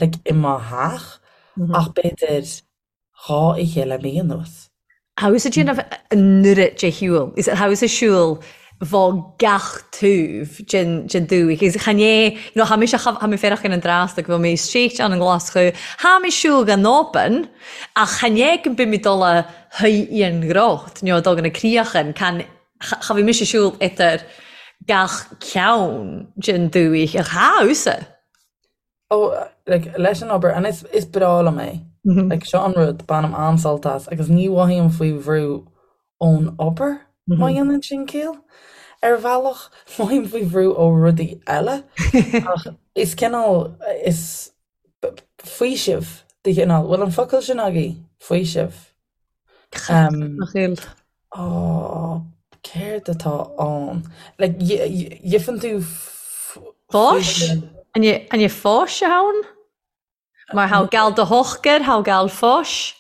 like i mo theach ach b'fhéidir 2 oíche le mí anuas. Tha thusa déanamh an oiread de shiúl. Is tha thusa siúl fo gach taobh den den dúiche. Agus chan é, you know, tha mise, tha mé féarachain an dtrásta go bhfuil mé istigh ann i nGlaschú. Tha mé siúl gan obain, ach chan é go mbím ag dul a shuí i an gcrot, nó ag dul go na críochan, can, cha bhí mise siúl idir gach ceann den dúiche. Ach tha thusa. Oh, like, leis an obair, and is, is breá liom é. Like, seo an rud, bainim an-sult as, agus ní mhothaím faoi bhrú ón obair, má dhéanann sin ciall. Ar bhealach, mothaím faoi bhrú ó rudaí eile, ach is cineál, is faoiseamh de chineál, bhfuil an focal sin agaibh? Faoiseamh. Nach bhfuil. Ó, céard atá ann? Like, gheibheann tú Fáis? An é fáis atá ann? Mar tha gal do shochar, tha gal fáis?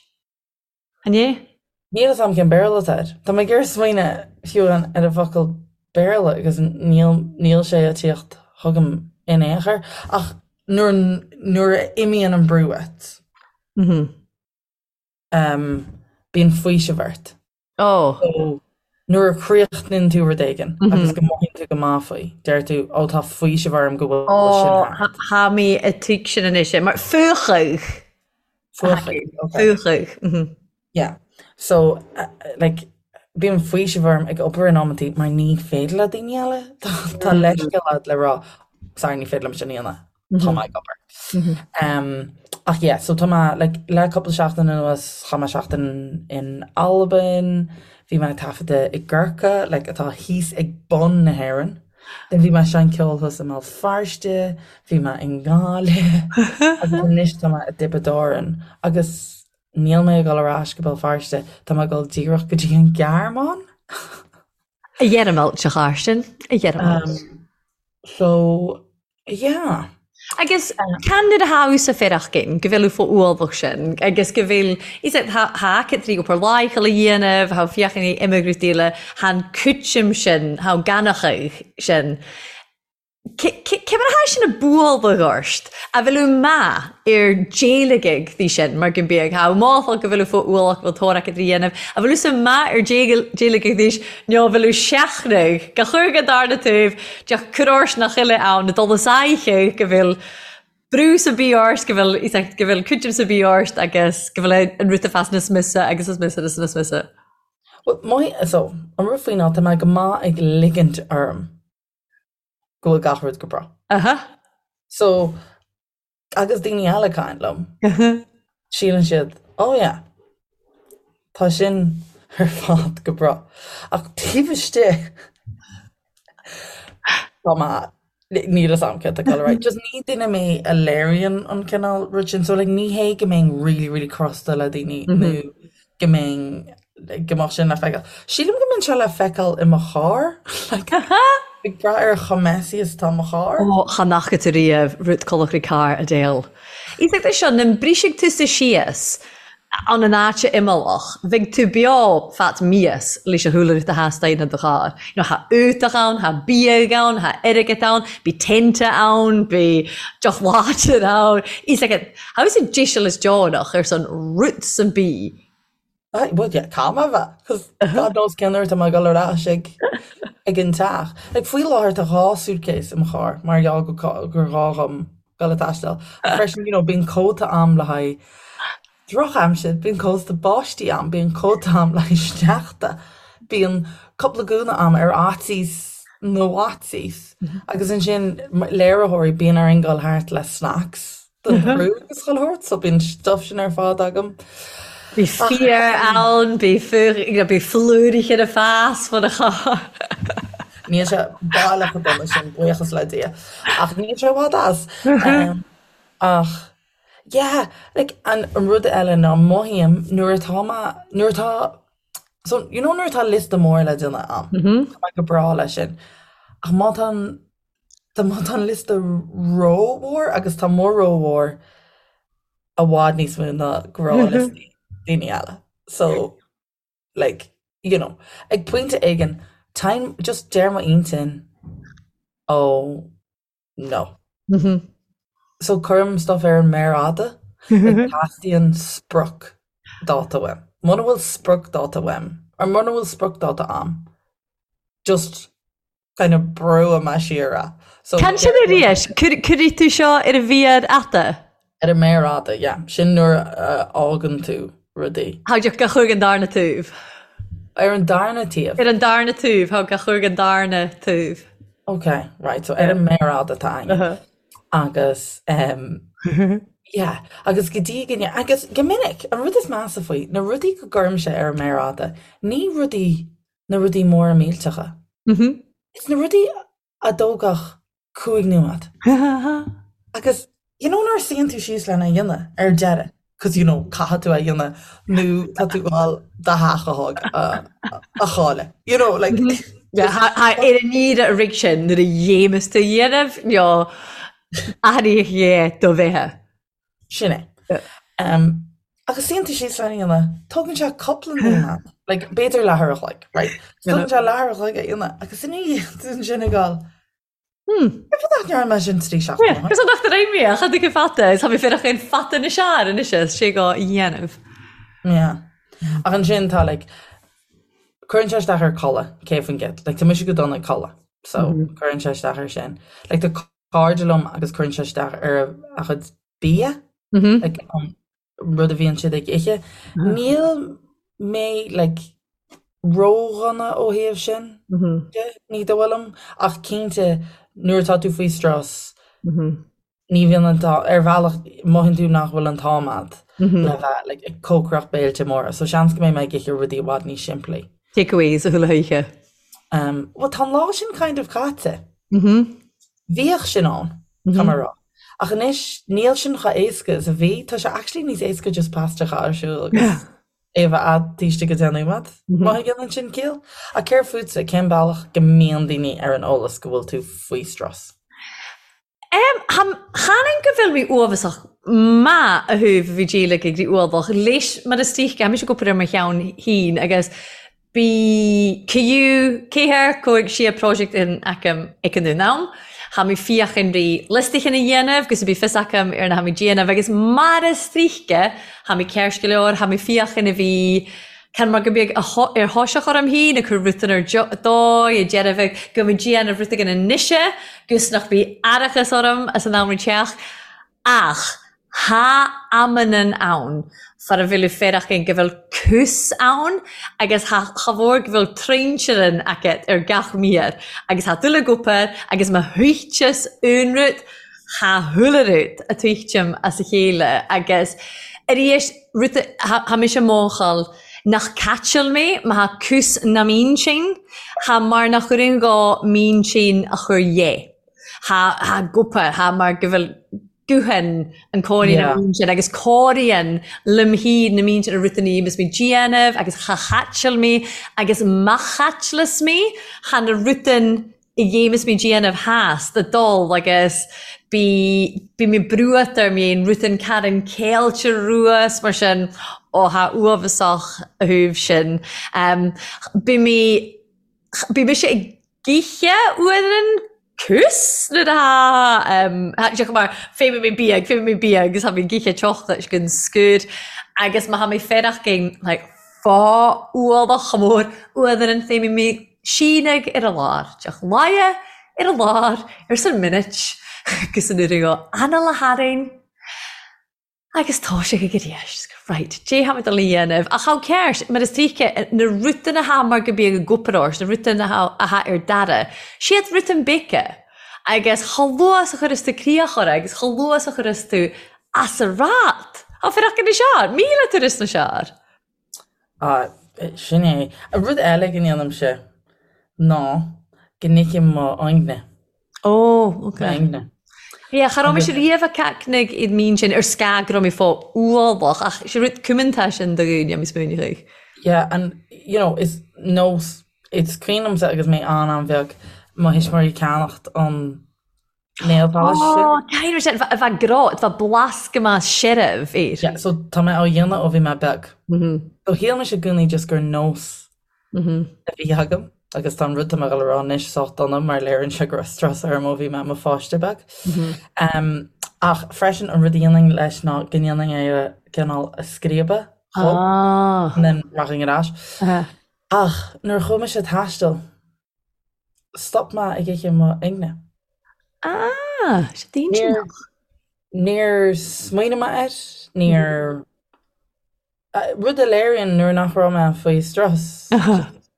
An é? Níl a fhios agam cén Béarla atá air. Tá mé ag iarraidh smaoineamh fiú ar an bhfocal Béarla agus níl níl sé ag tíocht chugam in aon chor. Ach nuair nuair a imíonn an brú uait. Bíonn faoiseamh ort. Ó. So, nuair a chríochnaíonn tú rud éigin agus go mothaíonn tú go maith faoi, deir tú, ó tá faoiseamh orm go bhfuil sin thart. Ó, tha mi a' tuigsinn anois é, mar fuachadh. Fuachadh, ok. Fuachadh. Yeah. So, like, bíonn faoiseamh orm ag obair in amantaí mar ní féidir le daoine eile, tá leithscéal agat le rá, sorry, ní féidir liom sin a dhéanamh. tá mé ag obair. Ach yeah, so tá mé like le cúpla seachtain anuas, chaith mé seachtain in Albain, bhí mé ag taifeadadh i gCorca, like atá thíos ag bun na hÉireann. Then bhí mé ag seinnt ceoil thuas i mBéal Feirste, bhí mé i nGaillimh, agus anois tá mé i dTiobraid Árann. Agus níl mé ag dul ar ais go Béal Feirste, tá mé ag dul díreach go dtí an Ghearmáin. A Ghearmáil, a Charsten, a Ghearmáil. So, yeah. Agus can nuair a tha thusa faireachdain, go bheil thu fo ualbhach sin, agus go bheil, is ea, tha tha agat obair laethúil a dhéanamh, tha féachaint ag imeacht eile, tha an cúiteam sin, tha ganachadh sin. Cé mar atá sin ag bualadh ort? A bhfuil maith ar déileagaidh dí sin mar go mbíodh thá máthach go bhfuil fó ualach go bhfuil tóir acu trí dhéanamh, a bhfuil sa maith ar déileagaidh dís nó a bhfuil seachnaidh go chur go darna taobh deoch cur ort nach uile ann a dul is aghaidh go bhfuil brú sa bí ort go bhfuil go bhfuil cuidim sa bí ort agus go bhfuil an rud a fás níos miosa agus is miosa agus is miosa. Well, my, so, an rud faoi ná tá mé go maith ag ligint orm. go bhfuil gach rud go breá. Aha. So, agus daoine eile ag caint liom, síleann siad, oh yeah, tá sin ar fad go breá. Ach taobh istigh, tá mé, níl fhios a'm céard tá ag dul ar aghaidh. Just ní duine mé a léiríonn an cineál rud sin. So like ní hé go mbeinn really, really crosta le daoine nó go mbeinn, go mbeadh sin le feiceáil. Sílim go mbíonn sé le feiceáil i mo charr, like, ag brath ar chomh messy is atá mo charr. Ó, chan fhaca tú riamh rud colachraí carr a Dale. Is é seo, na mbrisfidh tusa síos ann an áit imeallach, bheidh tú beo fat mias leis an chúlra a theastaíonn i do charr. You know, tha útach ann, tha biadh ann, tha airgead ann, bí tente ann, bí deoch láidir ann. Is like, how is it díseal is deonach ar son roots and bí? Aye, well yeah, caithfidh mé a bheith, 'cause God knows cén uair atá mé ag dul ar ais ag ag an teach. Like faoi láthair tá 2 suitcase i mo charr mar gheall go gur ghá dhom dul ag taisteal. Ach freisin, you know, bíonn cóta a'm le haghaidh drochaimsir, bíonn cóta báistí a'm, bíonn cóta a'm le haghaidh sneachta, bíonn cúpla gúna a'm ar fhaitíos na bhfaitíos. Agus ansin léiritheoirí, bíonn orainn dul thart le snacks. don chriú agus chuile shórt, so bíonn stuff sin ar fad agam. Bhí féar ann, bhí bhí flúirigh ar a fás fan a charr. Níl sé baileach chomh dona sin, buíochas le Dia. Ach níl sé i bhfad as. Ach yeah, like an rud eile ná mothaím nuair atá mé, nuair atá, so you know nuair atá liosta mór le déanamh a'm, tá mé go breá leis sin. Ach má tá an Tá má tá an liosta rómhór agus tá mo rómhór i bhfad níos mó ná gnáthliostaí daoine eile. So, like, you know, ag pointe éigin, time, just deir m'intinn, oh, no. So cuirim stuff ar an méar fhada, like teastaíonn sprioc dáta uaim. Muna bhfuil sprioc dáta uaim, or muna bhfuil sprioc dáta a'm, just kind of brúfaidh mé siar é. So Can sin arís, cuirfidh tú seo ar an mhéar fhada? Ar an méar fhada, yeah. Sin nuair a fhágann tú rudaí. Thá go chuig an darna taobh. Ar an darna taobh? Ar an darna taobh, thá go chuig an darna taobh. Ok, right, so ar an méar fhada atá againn. Agus, um, yeah, agus go dtí go agus go minic, an rud is measa faoi, na rudaí go gcuirimse ar an méar fhada, ní rudaí na rudaí móra millteacha. Is na rudaí a dtógfadh 5 nóiméad. Agus you know nuair a suíonn tú síos lena dhéanamh ar deireadh, cos you know caithfidh tú é a dhéanamh nó tá tú ag gabháil do theach a thóg a chailleadh. You know like Ar an iarraidh a rig sin nuair a dhéamas tú a dhéanamh nó athraíodh é do bheatha. Sin é. Um, agus suíonn tú síos lena dhéanamh, tógann sé cúpla nóiméad, like, b'fhéidir leathuair a chloig, right? Tógann sé leathuair a chloig a dhéanamh, agus ina dhiaidh sin ag gabháil, hmm, cén fáth nach ndearna mé sin 3 seachtaine ó shin? Cos nach raibh mé, cha dtuigim fata, is tá mé féach an fata na sear anois is sé go dhéanamh. Yeah. Ach ansin tá, like, cuireann sé isteach ar codladh, 100%. Like, tá mise go dona ag codladh, so cuireann sé isteach air sin. Like, tá cairde liom agus cuireann sé isteach ar a gcuid bia, like, an rud a bhíonn siad ag ithe. Níl mé like ródhona ó thaobh sin de, ní dóigh liom, ach cinnte nuair atá tú faoi strus, ní bhíonn an t-am, ar bhealach mothaíonn tú nach bhfuil an t-am a'd le bheith like ag cócaireacht béilte móra, so seans go mbeidh mé ag ithe rudaí i bhfad níos simplí. Takeaways a chuile oíche. Um, well tá an lá sin kind of caite. Bhíodh sin ann, tá mé a rá. Ach anois níl sin chomh éasca is a bhí, tá sé actually níos éasca just pasta a chur ar siúl agus é a bheith a'd taobh istigh de 10 nóiméad, má dhéanann sin ciall. Ach céard fútsa, cén bealach go mbíonn daoine ar an eolas go bhfuil tú faoi strus? Chan go bhfuil mé uaibheasach maith a thabh bhí díol ag ag ualach leis mar is dóiche tá mise ag obair ar mo cheann féin agus Bí ciú céathair cóig sia project in aicm ag an am. Tha mi fiachan ri liostachan a dhéanamh gus bí fios aicm ar na tha mi déanamh agus mar is dóiche tha mi ceart go leor tha mi fiachan a bhí can mar go mbeadh ar thoiseach orm féin ag cur rutan ar dóigh ag deireadh go mbeidh déanamh rud éigin anois gus nach bí aireachas orm as an am teach Ach tha amannan ann far a bhfuil féarachan go bhfuil cús ann agus tha cha mhór go bhfuil troinsirean agat ar gach mír agus tha dul ag obair agus má thuigteas aon rud tha chuile rud a tuigteam as a chéile agus arís rud tha mise mórchal nach caiteal mé má tha cús na m'intinn tha mar nach gcuireann gá m'intinn a chur dhe. Tha tha gopa, tha mar go bhfuil guthan an cóirín yeah. an sin agus cóiríonn liom féin na mín sin a rutan is mé déanamh agus cha chaiteal mé agus má chaitealas mé tha na rutan i ghéim is mé déanamh theas do dul agus bí bí mé brúat ar mé an rutan caran céilte ruas mar sin ó tha uaibheasach a thaobh sin. Um, bí mé bí mise ag Githe uaireann cús nuair atá sé mar féimidh mé bia, féimidh mé bia agus tá mé githe teochta is gon scúr agus má tá mé féarach gin like fá ualach chomh mór uaireann féimidh mé síneadh ar a lár, teach laighe ar a lár ar san minute agus an uair go anall a tharainn. Agus tá sé ag arís. Right, dé tha mi dol a dhéanamh. Ach how cares? Mar is dóiche, na rutan atá mar go bíodh ag obair ort, na rutan atá ar dara, siad rutan beaga. Agus chomh luath is a chuireas tú críoch orthu agus chomh luath is a chuireas tú as a rath, tá fir acu na seár, 1000 turas na seár. Ah, sin é. Rud eile go ndéanaimse ná go n-ithim mo fhoighne. Ó, ok. Mo fhoighne. Yeah, cha raibh mise riamh ag cacnaigh iad mín sin ar scag go raibh mé fá ualach ach sé rud cumanta sin do dhaoine a smaoineoidh. Yeah, and you know, is nós, it's cuimhin liomsa agus mé an-an-bheag, mo thuismitheoirí ag ceannacht an nail polish sin. Ó, caithfidh sé a bheith grá, tá blas go maith searbh air. Yeah, so tá mé á dhéanamh ó bhí mé beag. So shíl mise i gcónaí just gur nós a bhí agam agus tá an rud tá mé ag dul a rá anois sách dona mar léiríonn sé go raibh strus orm ó bhí mé i mo pháiste beag. Ach freisin an rud a dhéanainn leis ná go ndéanainn é a cineál a scríobadh chomh and then rachainn ar ais. Ach nuair a chuaigh mise ag taisteal, Stop mé ag ithe mo fhoighne. Ah, sé d'intinneach. Níor smaoinigh mé air, níor... Rud a léiríonn nuair nach raibh mé faoi strus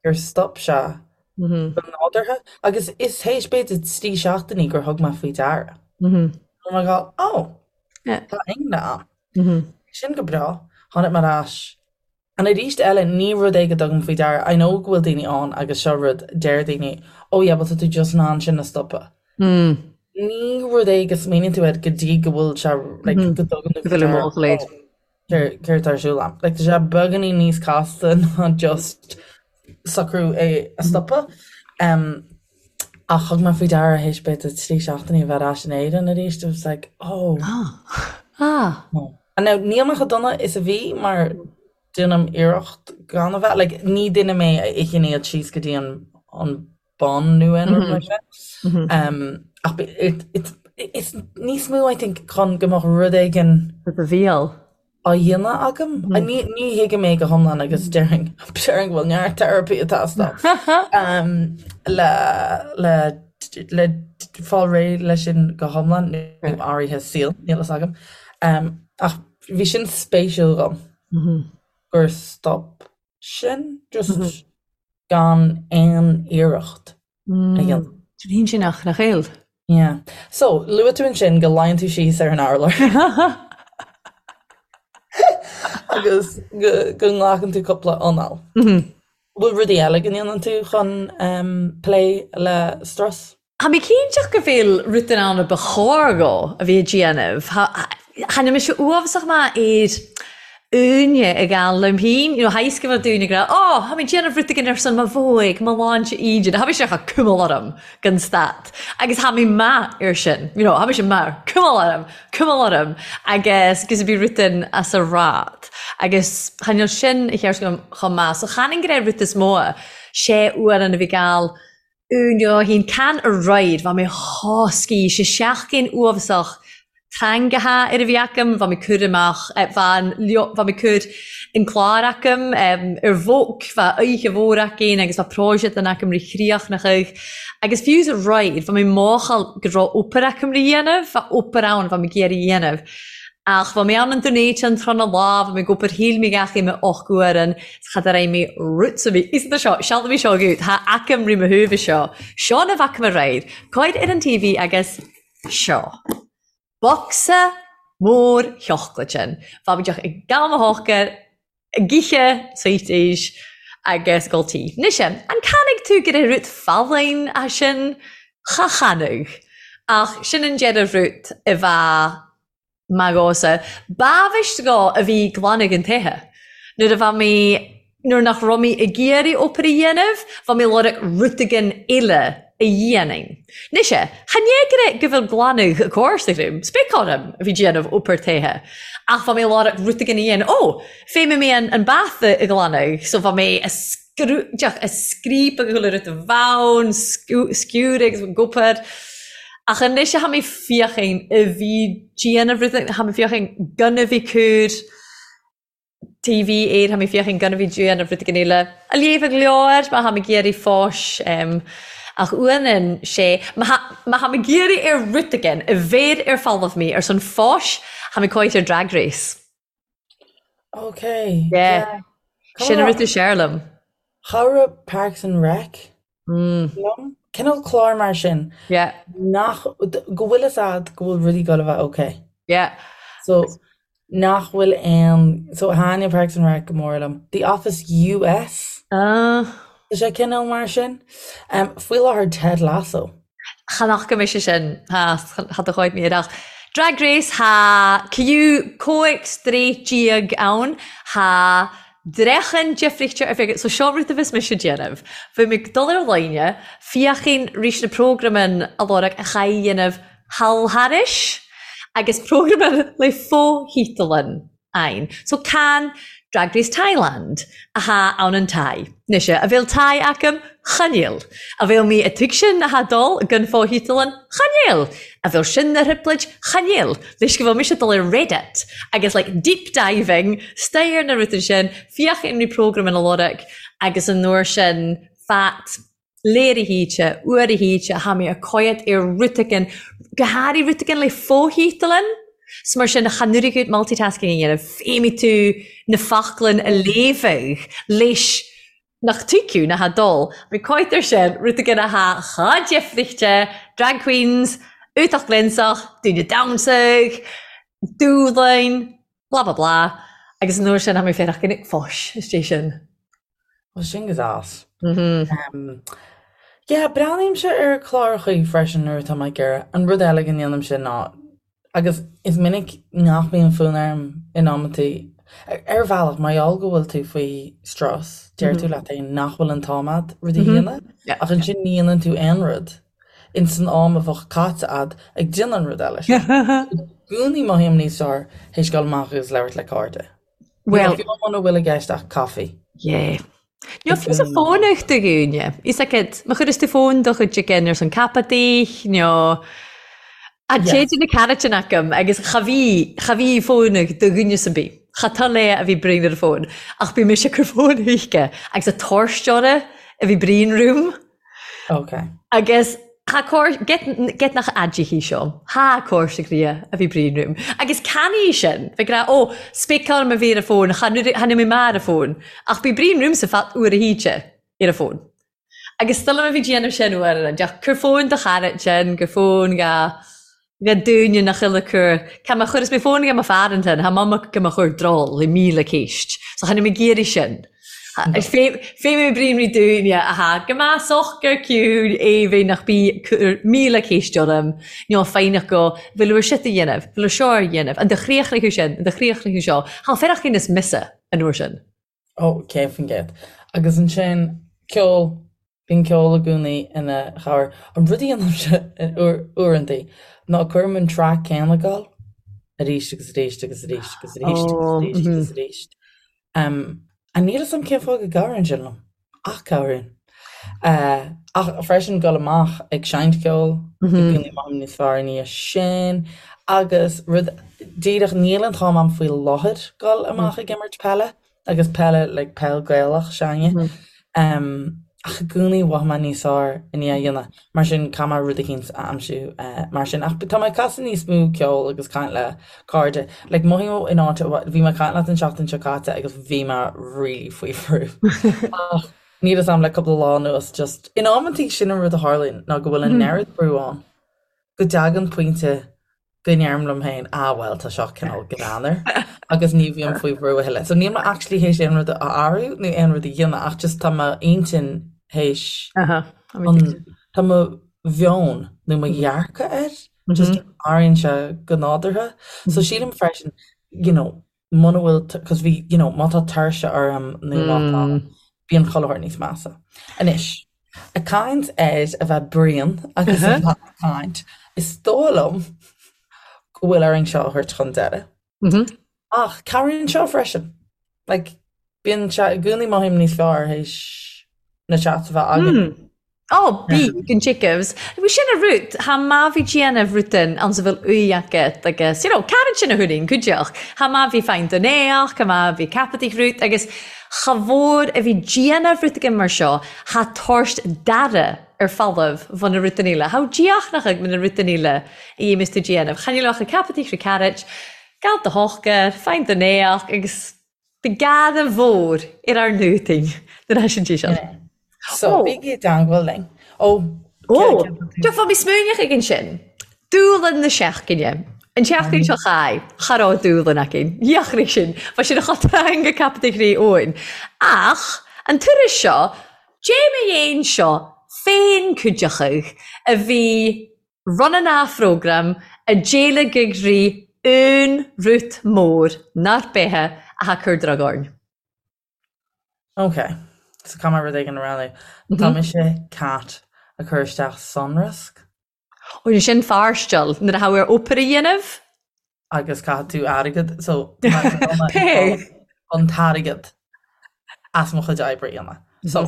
gur stop sé go nádúrtha. Agus is théis b'fhéidir 3 seachtainí gur thug mé faoi deara. Go raibh mé ag dul, oh, tá ingne a'm. Sin go breá. Tháinig mé ar ais And arís eile, ní rud é go dtugaim faoi deara, I know go bhfuil daoine ann agus seo rud, deir daoine, oh yeah, well tá tú just in ann sin a stopadh. Ní rud é go smaoiníonn tú air go dtí go bhfuil sé, like, go dtugann tú faoi deara, oh, céard atá ar siúl a'm. Like, tá sé beagáinín níos casta ná just socrú é a stopadh. Um, ach thug mé faoi deara théis b'fhéidir 3 seachtainí a bheith ar ais in Éirinn arís, I was like, oh. Ah. Oh. And now, níl mé chomh dona is a bhí mar déanaim iarracht gan a bheith, like, ní duine mé a itheann iad síos go dtí an, an bun nó aon rud mar sin. Um, ach it, it, it's níos mó, I think, chun go mbeadh rud éigin Do do bhéal. á dhéanamh agam. Ní, ní thuigim é go hiomlán agus déarfainn, déarfainn go bhfuil neart therapy ag teastáil um, le, le, le fáil réidh leis sin go hiomlán nó áirithe saoil, níl fhios agam. Ach bhí sin spéisiúil dhom gur stop sin just gan aon iarracht a dhéanamh. Sin intinneach nach eil. Yeah. So, luaigh tú ansin go luíonn tú síos ar an urlár agus go go nglacann tú cúpla anáil. Bhfuil rudaí eile go ndéanann tú chun plé le strus? Tha mi cinnteach gu bheil rudan ann a ba chòir dho a bhith a' dèanamh. Tha mise uabhasach math air. aoinne ag gabháil liom féin, you know, tha fhios go bhfuil daoine ag rá, oh, tha mi déanamh rud éigin ar son mo bhóig, mo shláinte ídin, tha mise cha cumail orm gan stad. Agus tha mi math air sin, you know, tha mise math, cumail orm, cumail orm, agus gus a bhí rud in as a rad. Agus chan eil sin a cheart agam chomh maith. So chan an gnàth rud is mó, sé uairean a bhith gabhail Úna hín can a ride, bha mi thoscaí, sé seachgain uabhasach teangacha ar a bhí agam, bha mi cur amach, bha an, bha mi cur an clár agam ar bhóc, bha oidhche mhór againn agus bha próiseachtan agam ri chríochnachadh agus fiú sa ride, bha mi máchail go raibh obair agam ri dhéanamh, bha obair ann bha mi ag iarraidh dhéanamh. Ach bha mi ann an Dún Éideann tráth na lá, bha mi ag obair shíl mi gach aon och uairean, 's cha raibh mi rud sa bhí fhios seo, sealbh mé seo agat, tha agam ri mo thaobh seo, seo na bhfaca me aréir, cuir ar an TV agus seo. Bocsa mór sheoclaid sin. Bha mi deoch ag gabháil mo shocair, ag ithe sweeties agus ag ól tae. Mise, an canfaidh tú gur rud folláin é sin? Cha chanfadh. Ach sin an deireadh rud a bheadh maith dhomhsa. B'amhaist dhó a bhí glanadh an toighe. Nuair a bha mé, nuair nach raibh mé ag iarraidh obair a dhéanamh, bha mé lorg rud éigin eile a dhéanamh. Mise, chan é go bhfuil glanadh a cóir agam, spéic orm a bhí déanamh obair toighe. Ach bha mé lorg rud éigin a dhéanamh. Ó, fé mé an an bath a ghlanadh, so bha mé a scrú, deoch, a scríobadh chuile rud a bhonn, sciúradh agus obair. Ach anois tha mi feuchainn a bhith déanamh rud, tha mi feuchainn gun a bhith cur TV air, tha mi feuchainn gun a bhith déanamh rud éigin eile. A léamhadh leabhar má tha mi ag iarraidh fòis, ach uaineann sé, má tha mi ag iarraidh ar rud éigin a bheir ar folamh mi ar son fòis, tha mi còite ar Drag Race. Ok. Yeah. Sin an rud is fearr liom. Chabhraigh Parks and Rec liom. Cineál clár mar sin. Yeah. Nach, go bhfuil fhios a'd go bhfuil rudaí ag dul a bheith ok. Yeah. So, nach bhfuil aon, so thaitnigh Parks and Rec go mór liom. The Office US. Ah. Tá sé cineál mar sin. Faoi láthair Ted Lasso. Chan fhaca mise sin, tha do chuid mé ach Drag Race tha ciú cóig 13 ann, tha dreachan deifrichte ar féidir, so seo rud a bheas mise ag déanamh. Bheidh mé ag dul ar líne, féachainn rís na prógramann a lorg a chaith dhéanamh thall thairis agus prógramann le fo-thítealann. Ain. So can Drag Race Thailand a tha ann an Thai. Mise, a bheil Thai agam? Chan eil. A bheil mi a tuigsin a tha dol gan fo-thítealann? Chan eil. A bheil sin na thrioblóid? Chan eil. Leis go bhfuil mise dul ar Reddit agus like deep diving, stair na rudaí sin, féachaim ri programme ina lorg agus an uair sin fat léirithíte, uairithíte, tha mi a coigead ar rud éigin, go háirithe rud éigin le fo-thítealann. 'S mar sin, chan oirfidh multitasking a dhéanamh, feidhmigh tú na foclain a léamhadh leis nach tuigeadh na tha dul. Bhí coit air sin, rud éigin a tha chomh deifrichte, drag queens, iontach glionsach, daoine damhsaigh, dúshláin, blah blah blah, agus an uair sin tha mi féarach go nic fáis istigh sin. Bhuel, sin go deas. Yeah, breathnaímse ar chlárachaí freisin nuair atá mé ag iarraidh. An rud eile go ndéanaimse ná, agus is minic nach mbíonn fonn orm in amantaí, ar bhealach, mar gheall go bhfuil tú faoi strus, deir tú leat féin nach bhfuil an t-am a'd rud a dhéanamh, ach ansin ní dhéanann tú aon rud ins an am a bheadh caite a'd ag déanamh an rud eile sin. I gcónaí mothaím níos fearr théis dul amach agus labhairt le cairde. Well, fiú muna bhfuil i gceist ach caife. Yeah. Níl fiú sa fónach do dhaoine. Is agat, má chuireas tú fón do chuid again ar son capadaí, nó a téide na caraitin agam agus cha bhí, cha bhí fónach do dhuine san bith. Cha tá lé a bhí braon ar an fón, ach bhí mise ag cur fón chuige agus a torsteora a bhí braon room. Ok. Agus tha cóir, get, get nach aidithe seo, tha cóir sa ghria a bhí braon room. Agus can í sin, bheith ag rá, ó, spéiceáil ma bhí ar a fón, cha cha níl mé mar a fón, ach bhí braon room sa fat uair a híte ar a fón. Agus still ma bhí déanamh sin uair an deach, cur fón do chara sin, gur fón ga, ga dúine nach uile cur, ca ma chuireas mé fón ga mo fear ansin, tha mama go mo chur drol le 1000 céist. So cha níl mé ag iarraidh sin. Fé mé brín rí dúinne a tha go maith socair ciúin aoibhinn nach bí cur 1000 céist orm nó foighneach go bhfuil uair seo a dhéanamh, bhfuil uair seo a dhéanamh, an do chríochnaigh sin, an do chríochnaigh seo, thá fearach is mise an uair sin. Ó, 100%. Agus ansin, ceol, bíonn ceol i gcónaí ina chabhair. An rud a dhéanaimse uaireanta ná cuirim an traic céanna ag gabháil arís agus arís agus arís agus arís agus arís agus arís. Níl a fhios agam cén fáth go gcabhraíonn sin liom, ach cabhraíonn. Ach freisin dul amach ag seinnt ceoil, i gcónaí mothaím níos fearr i ndiaidh sin. Agus rud díreach, níl an t-am a'm faoi láthair dul amach ag imirt peile, agus peile like peil Gaelach s'againne. Ach i gcónaí mhothaigh mé níos fearr i ndiaidh a dhéanamh. Mar sin caithfidh mé rud eicínt a aimsiú mar sin. Ach tá mé ag casadh níos mó ceoil agus caint le cairde. Like mothaím in áit, bhí mé ag caint leat an tseachtain seo caite agus bhí mé really faoi bhrú. Ach níl a fhios a'm le cúpla lá anuas just, in amantaí sin an rud a tharlaíonn ná go bhfuil an oiread brú ann go dtagann pointe go ndeirim liom féin, ah bhuel tá seo cineál greannmhar agus ní bhím faoi bhrú a thuilleadh. So níl mé actually théis aon rud a athrú nó aon rud a dhéanamh ach just tá m'intinn théis tá mo mheon nó mo dhearcadh air just athraíonn sé go nádúrtha. So sílim freisin, you know, muna bhfuil, cos bhí, you know, má tá tuirse orm nó má tá, bíonn chuile shórt níos measa. Anois, ag caint ar a bheith bréan agus a bheith ag caint, is dóigh liom go bhfuil orainn seo a thabhairt chun deiridh. Ach cabhraíonn seo freisin. Like, bíonn sé i gcónaí mothaím níos fearr théis na chats a bheith againn. Ó, bí, gun Jacobs. Bhí sin a rud, tha math bhith dèanamh rudan anns a bheil uaidh agat agus, you know, caran sin a thuirín cuideachd. Tha math bhith faighinn don éach, tha math bhith ceapadh rud agus cha mhór a bhith dèanamh rud againn mar seo, tha tabhairt d'aire ar falamh bhun na rudan eile. Tha díochnach ag na rudan eile a dhéamas tú dèanamh. Chan eil ach ag ceapadh ri carrait, gal do shochar, faighinn don éach agus Bhí gada mhór ar ár ndútain nuair a sin sí seo. So, bígí i dteangmháil linn. Ó, Ó, Tá mé smaoineach ag ansin. Dúlann na seachtaine. An tseachtain seo chaith, cha raibh dúlann againn. Dheachraigh sin. Bha sin a cha teanga captaigh rí Eoin. Ach, an turas seo, dé mo dhéin seo féin cuideachadh a bhí Run an phrógram a d'éiligh rí aon rút mór nár beithe a tha cur drog orainn. Ok, so caithfidh mé rud éigin a roghnú. Tá mise cat ag cur isteach sonrasc. Ó, sin fairsteal nuair a tha ar obair a dhéanamh. Agus caithfidh tú airgead, so tá an t-airgead as mo chuid oibre a dhéanamh. So,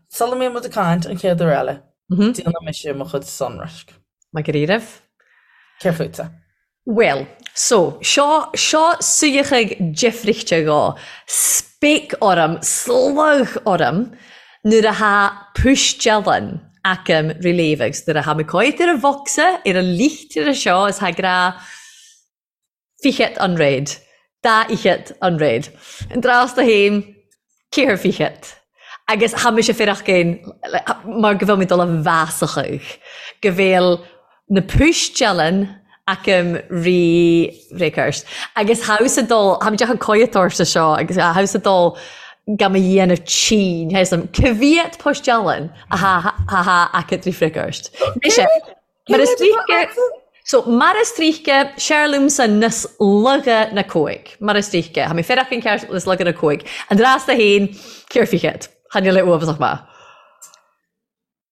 sula mbíonn muid ag caint an chéad uair eile, déanfaidh mise mo chuid sonraisc. Maith go raibh. Céard fútsa? Bhuel, so, seo, seo suíochadh deifrichte dhó. Spéic orm, slog orm, nuair a tha puistealann agam ri léamh agus nuair a tha mé coit ar an bhocsa, ar an licht ar seo is tha grá fichead an réad, dá fhichead an réad. An dtráth do fhéin, ceathair fichead. Agus tha mise fearach géin mar go bhfuil mé dul a mheasachadh, go bhfuil na puistealann agam ri bhréagcheart. Agus tha thusa dul, tha mé deacair coimheadóir sa seo agus tha thusa dul gan mo dhéanamh tinn, tha fhios a'm, ca mhéad puistealann a tha tha agat ri bhréagcheart. Mise, Mar is tríche, so mar is tríche, seir liomsa nas laga na cóig. Mar is tríche, tha mi fearach an ceart nas laga na cóig. An dreas do fhéin, ceir fichead. Chan eil e uabhasach math.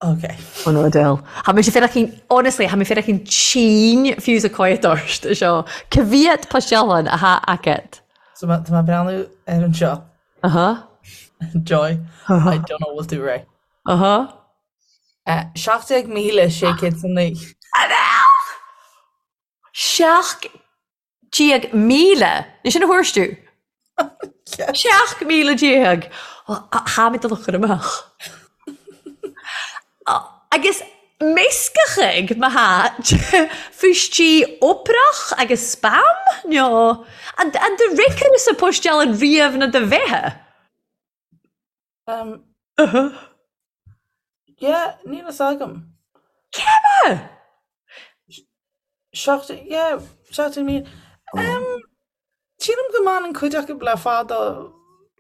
Ok. Oh no, Adele. Tha mise fearach honestly, tha mi fearach an tinn fiú sa coimheadóir seo. Ca mhéad poistealann a tha agat? So tá mé ag breathnú ar an seo. Uh-huh. Joy, I don't know what to write. Uh-huh. 17,609. Adele! 17,000! Ní sin a thuairisc tú? 17,000! Tha mi dol a chur amach. Agus meascachadh mo tha fuistí oprach agus spam? No. An do ricir sa poistealann riamh na do bheithe? Um, yeah, níl fhios agam. Cé Seacht, yeah, 17,000. Um, sílim go mbaineann cuid acu le fada.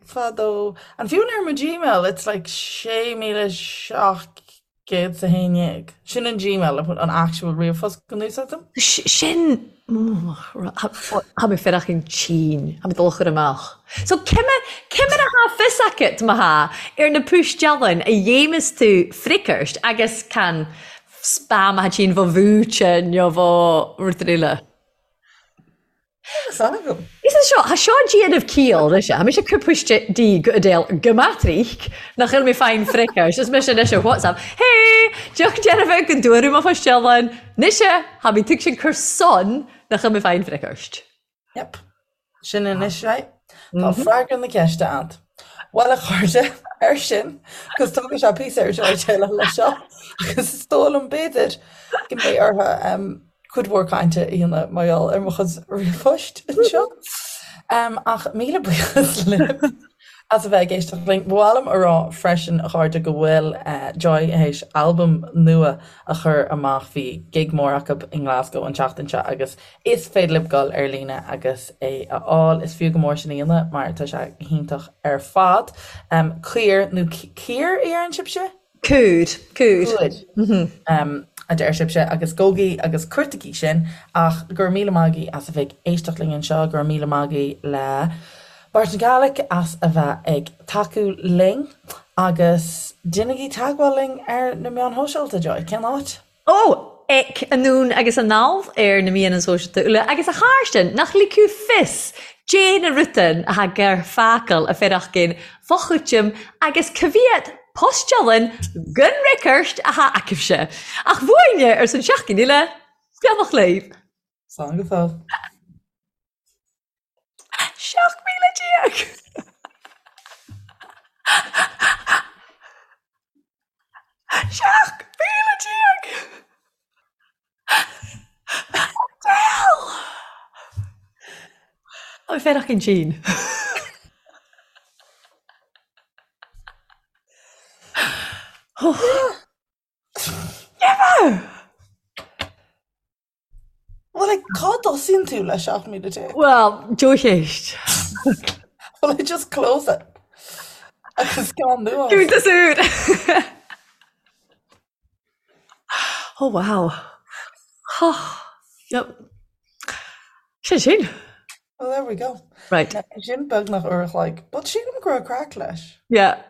Fadó. And fiú ar mo Gmail, it's like 6,711. Sin an Gmail, an actual ríomhphost go n-úsáidim. Sin, Tha mi faireachinn tinn, tha mi dol a chur amach. So cimir, cimir a tha fios agat, ma tha, air na pùistealainn a dhéamas tu freagairt agus can spam a tha tinn bho bhúite nó bho rud eile. Tá a fhios agam. Is é seo, tha seo déanamh ciall, rise. Tha mise ag cur poist di go Adele go maith nach bhfuil mé faighinn freagairt. Is mise anois ar WhatsApp, Hey! Deoch dearfa go dtuaradh mo phoistealann. Mise, tha mi tuig sin cur son nach bhfuil mé faighinn freagairt. Yep. Sin anois é. Tá freagra na ceiste a'd. Bhuel a chairde, ar sin, agus tógfaidh sé píosa ar Joy déileáil leis seo, agus is dóigh liom b'fhéidir go mbeidh orthu cuid mhór cainte a dhéanamh mar gheall ar mo chuid ríomhphoist anseo. Ach míle buíochas libh as a bheith ag éisteacht linn. Ba mhaith liom a rá freisin, a chairde, go bhfuil Joy théis albam nua a chur amach. Bhí gig mór acu i nGlasgow an tseachtain seo agus is féidir libh dul ar líne agus é a fháil. Is fiú go mór sin a dhéanamh mar tá sé go hiontach ar fad. Caor nó Caor a deireann sibhse? Cúr, cúr. Cúr, a deir sibhse, agus gabhaigí agus cuartaigí sin. Ach go raibh míle maith agaibh as a bheith ag éisteacht linn anseo, go raibh míle maith agaibh le Barton Gaelic as a bheith ag tacú linn agus déanaigí teagmháil linn ar na meáin shóisialta, Joy, cén áit? Ó! Ec anonn agus anall air na meadhanan sóisealta uile agus a Chàrsainn nach ligfeadh fios Dè na rudan a tha gur fàghail a faireachdain fo-chúiteam agus ca mhiad poistealann gun reicairt a tha agaibhse. Ach bhuaine ars an seachdain eile, beannacht leibh. Slán go fóill. 17,000! 17,000! Adele! Tá mé faireachdain tinn. Never! Well, like, cá dtosaíonn tú le 17,000? Well, dea-cheist. Well, I just close it. Agus ceann nua. Cúntas úr! Oh, wow. Oh, yep. Sin sin. Well, there we go. Right. Sin beagnach uair a chloig, but sílim go raibh craic leis. Yeah.